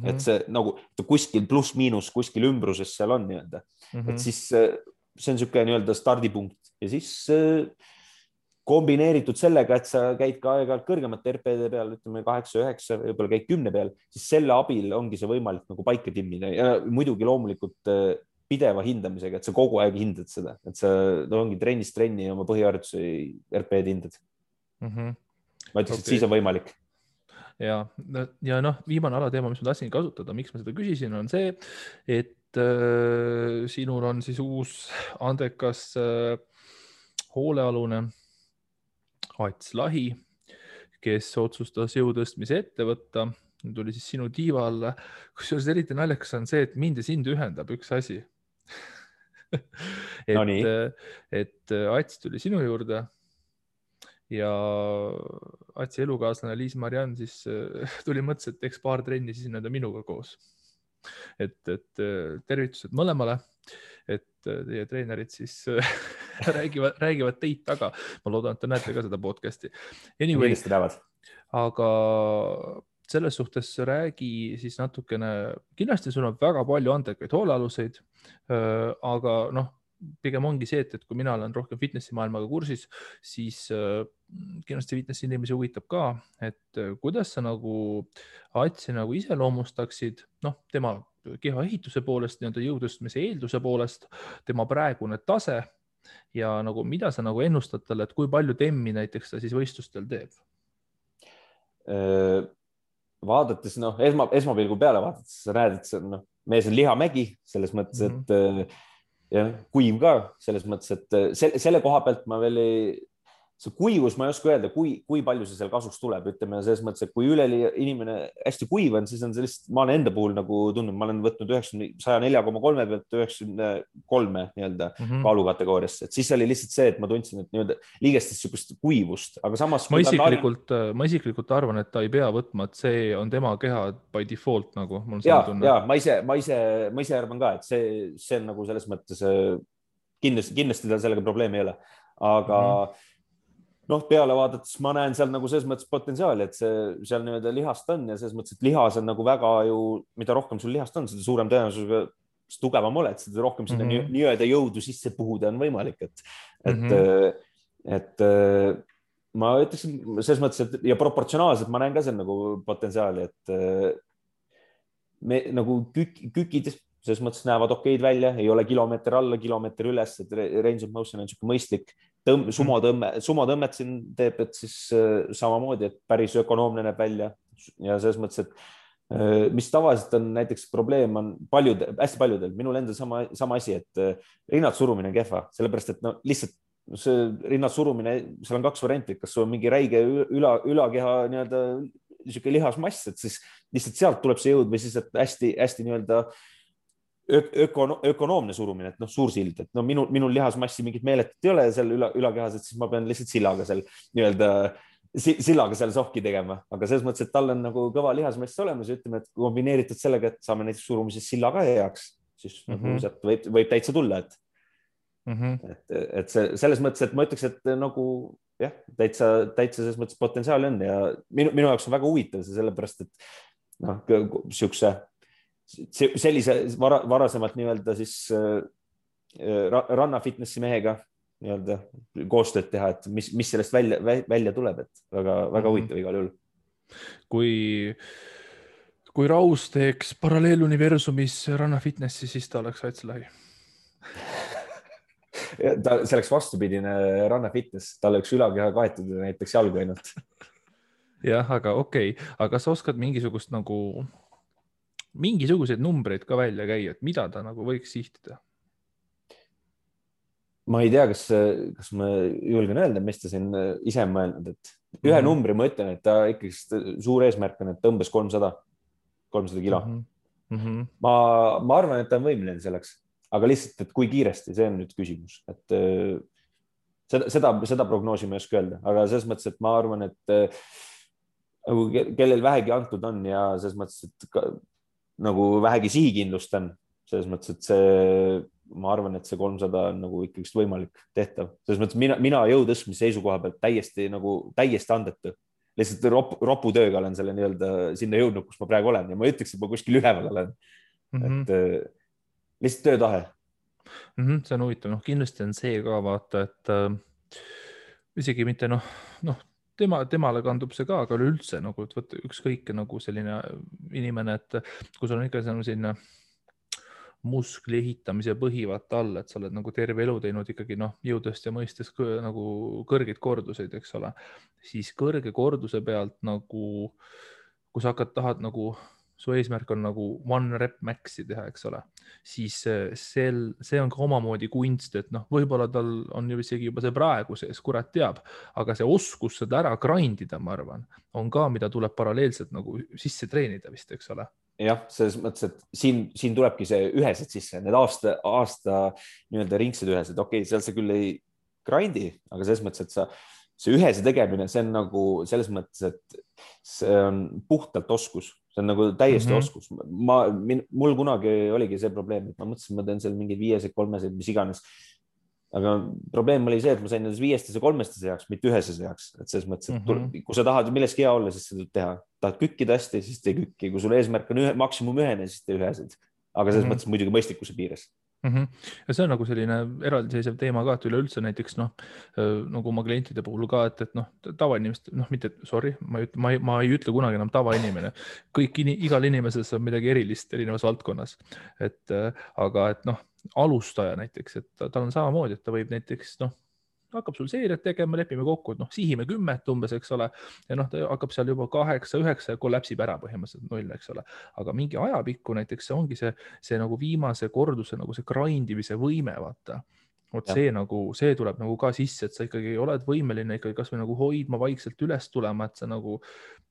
[SPEAKER 2] et see nagu kuskil pluss-miinus kuskil ümbruses seal on nii-öelda, et siis see on sihuke nii-öelda stardipunkt ja siis kombineeritud sellega, et sa käid ka aeg-ajalt kõrgemate RP-de peal, ütleme 8-9, võib-olla käid 10 peal, siis selle abil ongi see võimalik nagu paika timmida ja muidugi loomulikult pideva hindamisega, et sa kogu aeg hindad seda, et sa ongi trennist trenni oma põhiharjutuse RP-d hindad. Ma ütleks, et siis on võimalik.
[SPEAKER 1] Ja viimane alateema, mis ma tahtsin kasutada, miks ma seda küsisin, on see, et sinul on siis uus andekas hoolealune Ats Lahi, kes otsustas jõutõstmise ette võtta. Tuli siis sinu tiiva alla. Kusjuures eriti naljakas on see, et mind ja sind ühendab üks asi. et Ats tuli sinu juurde ja Atsi elukaaslane Liis-Mariann siis tuli mõttes, et eks paar trenni siis nende minuga koos. Et tervitused mõlemale, et teie treenerid siis räägivad teid taga. Ma loodan, et te näete ka seda podcasti. Anyway, aga selles suhtes räägi siis natukene, kindlasti sul on väga palju andekaid hoolealuseid, aga pigem ongi see, et kui mina olen rohkem fitnessi maailmaga kursis, siis kindlasti fitnessi inimesi huvitab ka, et kuidas sa nagu Atsi nagu iseloomustaksid, tema keha ehituse poolest, jõutõstmise eelduse poolest, tema praegune tase ja nagu mida sa nagu ennustad talle, et kui palju temmi näiteks ta siis võistlustel teeb?
[SPEAKER 2] Vaadates, esmapilgu peale vaadates, sa näed, et mees on lihamägi selles mõttes, et ja kuiv ka selles mõttes, et selle koha pealt ma veel see kuivus, ma ei oska öelda, kui palju see seal kasuks tuleb, ütleme selles mõttes, et kui üleli inimene hästi kuiv on, siis on see lihtsalt, ma olen enda puhul nagu tundnud, ma olen võtnud 104,3 pealt 93 nii-öelda kaalukategooriasse, et siis oli lihtsalt see, et ma tundsin, et nii-öelda liigestest sihukest kuivust, aga samas
[SPEAKER 1] ma isiklikult arvan, et ta ei pea võtma, et see on tema keha by default nagu.
[SPEAKER 2] Ja ma ise arvan ka, et see on nagu selles mõttes kindlasti tal sellega probleemi ei ole, aga peale vaadates ma näen seal nagu selles mõttes potentsiaali, et seal nii-öelda lihast on ja selles mõttes, et lihas on nagu väga mida rohkem sul lihast on, seda suurem tõenäosusega tugevam oled, seda rohkem sinna nii-öelda jõudu sisse puhuda on võimalik, et ma ütleks selles mõttes, et ja proportsionaalselt ma näen ka seal nagu potentsiaali, et me nagu kükid selles mõttes näevad okeid välja, ei ole kilomeeter alla, kilomeeter üles, et range of motion on niisugune mõistlik. Sumotõmmet siin teeb, et siis samamoodi, et päris ökonoomne näeb välja ja selles mõttes, et mis tavaliselt on näiteks probleem on hästi paljudel, minul endal sama asi, et rinnad surumine on kehva, sellepärast, et lihtsalt see rinnad surumine, seal on 2 varianti, kas sul on mingi räige ülakeha nii-öelda niisugune lihasmass, et siis lihtsalt sealt tuleb see jõud või siis, et hästi nii-öelda ökonoomne surumine, et suursild, et minul lihasmassi mingit meeletut ei ole seal ülakehas, et siis ma pean lihtsalt sillaga seal sohki tegema, aga selles mõttes, et tal on nagu kõva lihasmass olemas ja ütleme, et kombineeritud sellega, et saame näiteks surumises sillaga heaks, siis sealt võib täitsa tulla, et selles mõttes, et ma ütleks, et nagu jah, täitsa selles mõttes potentsiaali on ja minu jaoks on väga huvitav see sellepärast, et sellise varasemalt nii-öelda siis ranna fitnessi mehega nii-öelda koostööd teha, et mis sellest välja tuleb, et väga huvitav igal juhul.
[SPEAKER 1] Kui Raus teeks paralleeluniversumis ranna fitnessi, siis ta oleks Ats Lahi.
[SPEAKER 2] See oleks vastupidine ranna fitness, tal oleks ülakeha kaetud ja näiteks jalgu ainult.
[SPEAKER 1] Jah, aga okei. Aga sa oskad mingisuguseid numbreid ka välja käia, et mida ta nagu võiks sihtida?
[SPEAKER 2] ma ei tea, kas ma julgen öelda, mis ta siin ise on mõelnud, et ühe numbri ma ütlen, et ta ikkagi suur eesmärk on, et tõmbes 300 kilo. Ma arvan, et ta on võimeline selleks, aga lihtsalt, et kui kiiresti, see on nüüd küsimus, et seda prognoosi ma ei oska öelda, aga selles mõttes, et ma arvan, et nagu kellel vähegi antud on ja selles mõttes, et nagu vähegi sihikindlust on, selles mõttes, et ma arvan, et see 300 on nagu ikkagi võimalik tehtav. Selles mõttes mina jõutõstmise seisukoha pealt täiesti andetu. Lihtsalt roputööga olen selle nii-öelda sinna jõudnud, kus ma praegu olen ja ma ütleks, et ma kuskil üleval olen. Et lihtsalt töötahe.
[SPEAKER 1] See on huvitav. Kindlasti on see ka vaata, et isegi mitte temale kandub see ka, aga üleüldse nagu, et võtta ükskõik nagu selline inimene, et kui sul on ikka selline muskli ehitamise põhivat all, et sa oled nagu terve elu teinud ikkagi jõudest ja mõistes nagu kõrgeid korduseid, eks ole, siis kõrge korduse pealt nagu, kui sa tahad nagu, su eesmärk on nagu one rep max'i teha, eks ole, siis see on ka omamoodi kunst, et võib-olla tal on ju isegi juba see praegu sees, kurat teab, aga see oskus seda ära grindida, ma arvan, on ka, mida tuleb paralleelselt nagu sisse treenida vist, eks ole.
[SPEAKER 2] Jah, selles mõttes, et siin tulebki see ühesed sisse, need aasta nii-öelda ringsed ühesed. Okei, seal sa küll ei grindi, aga selles mõttes, et see ühese tegemine, see on nagu selles mõttes, et see on puhtalt oskus. See on nagu täiesti oskus. Mul kunagi oligi see probleem, et ma mõtlesin, ma teen seal mingid 5-sed, 3-sed, mis iganes. Aga probleem oli see, et ma sain nendes 5-stes ja 3-stes heaks, mitte üheses heaks. Et selles mõttes, et kui sa tahad milleski hea olla, siis seda teha. Tahad kükkida hästi, siis tee kükki. Kui sul eesmärk on maksimum ühene, siis tee ühesed. Aga selles mõttes muidugi mõistlikkuse piires.
[SPEAKER 1] Ja see on nagu selline eraldiseisev teema ka, et üleüldse näiteks nagu oma klientide puhul ka, et tavainimest, mitte, sorry, ma ei ütle kunagi enam tavainimene. Igal inimeses on midagi erilist erinevas valdkonnas. Aga alustaja näiteks, et tal on samamoodi, et ta võib näiteks, hakkab sul seeriat tegema, lepime kokku, et sihime 10 umbes, eks ole, ja ta hakkab seal juba 8-9 ja kollapsib ära põhimõtteliselt 0, eks ole. Aga mingi ajapikku näiteks see ongi see nagu viimase korduse nagu see grindimise võime, vaata. See tuleb nagu ka sisse, et sa ikkagi oled võimeline ikkagi kas või nagu hoidma vaikselt üles tulema, et sa nagu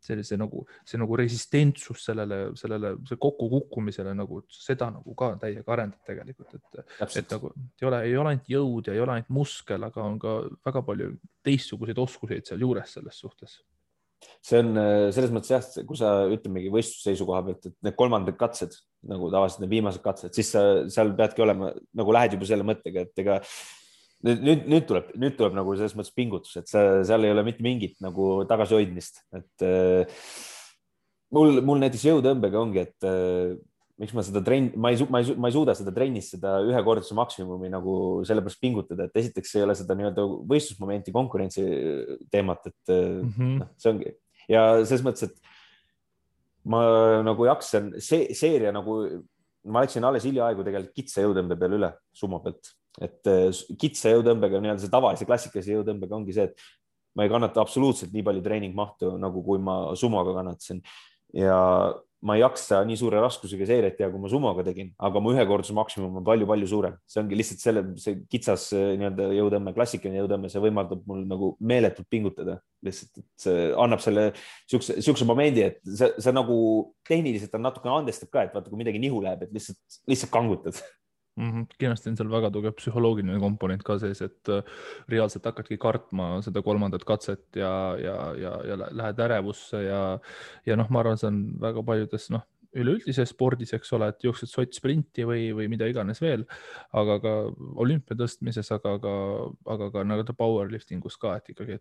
[SPEAKER 1] see nagu resistentsus see kokkukukkumisele nagu seda nagu ka täiega arendab tegelikult, et nagu ei ole ainult jõud ja ei ole ainult muskel, aga on ka väga palju teistsuguseid oskuseid seal juures selles suhtes.
[SPEAKER 2] See on selles mõttes jah, kui sa ütlemegi võistlusseisukoha pealt, et need kolmandad katsed, nagu tavaliselt need viimased katsed, siis sa seal peadki olema, nagu lähed juba selle mõttega, et ega nüüd tuleb nagu selles mõttes pingutus, et seal ei ole mitte mingit nagu tagasihoidmist, et mul näiteks jõutõmbega ongi, et miks ma seda ma ei suuda seda trennis, seda ühekordse maksimumi nagu sellepärast pingutada, et esiteks ei ole seda nii-öelda võistlusmomenti, konkurentsi teemat, et see ongi. Ja selles mõttes, et ma nagu jaksan seeria nagu, ma läksin alles hiljaaegu tegelikult kitsa jõutõmbe peale üle sumo pealt, et kitsa jõutõmbega nii-öelda see tavalise klassikalise jõutõmbega ongi see, et ma ei kannata absoluutselt nii palju treeningmahtu, nagu kui ma sumoga kannatasin ja ma ei jaksa nii suure raskusega seeriat teha, kui ma sumoga tegin, aga mu ühekordse maksimum on palju-palju suurem. See ongi lihtsalt see kitsas nii-öelda jõutõmme, klassikaline jõutõmme, see võimaldab mul nagu meeletult pingutada. Lihtsalt, et see annab selle siukse momendi, et see nagu tehniliselt on natuke andestab ka, et vaata, kui midagi nihu läheb, et lihtsalt kangutad.
[SPEAKER 1] Kindlasti on seal väga tugev psühholoogiline komponent ka sees, et reaalselt hakkadki kartma seda kolmandat katset ja lähed ärevusse ja ma arvan, see on väga paljudes üleüldises spordis, eks ole, et jooksed sottsprinti või mida iganes veel, aga ka olümpia tõstmises, aga ka nagu powerliftingus ka, et ikkagi,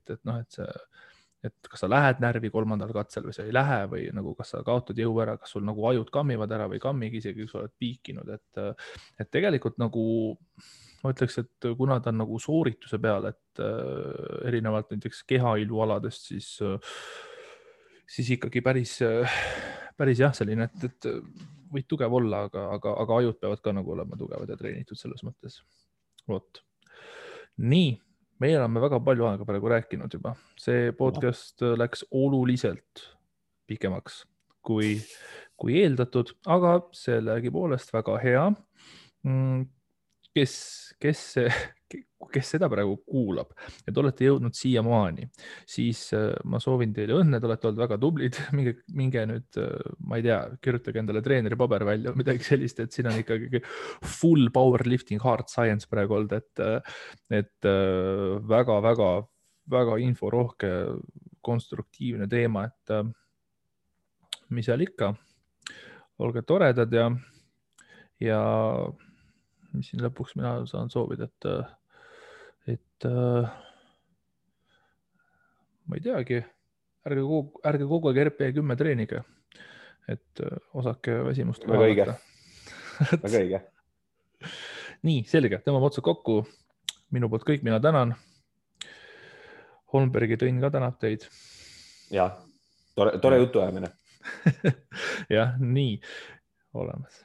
[SPEAKER 1] et kas sa lähed närvi kolmandal katsel või sa ei lähe või nagu kas sa kaotad jõu ära, kas sul nagu ajud kammivad ära või kammigi isegi, kui sa oled piikinud, et tegelikult nagu ma ütleks, et kuna ta on nagu soorituse peal, et erinevalt näiteks kehailualadest, siis ikkagi päris jah, selline, et võid tugev olla, aga ajud peavad ka nagu olema tugevad ja treenitud selles mõttes. Vot. Nii. Meie oleme väga palju aega praegu rääkinud juba. See podcast läks oluliselt pikemaks kui eeldatud, aga sellegipoolest väga hea. Kes kes seda praegu kuulab ja te olete jõudnud siiamaani, siis ma soovin teile õnne, te olete olnud väga tublid, minge nüüd, ma ei tea, kirjutage endale treeneri paber välja või midagi sellist, et siin on ikkagi full powerlifting, hard science praegu olnud, et väga inforohke, konstruktiivne teema, et mis seal ikka, olge toredad ja mis siin lõpuks mina saan soovida, et ma ei teagi, ärge kogu aeg RP10 treenige, et osake väsimust
[SPEAKER 2] väga õige. Väga õige.
[SPEAKER 1] Nii, selge, tõmbame otsad kokku. Minu poolt kõik, mina tänan. Holmbergi Tõnn ka tänab teid.
[SPEAKER 2] Ja, tore jutuajamine.
[SPEAKER 1] jah, nii olemas.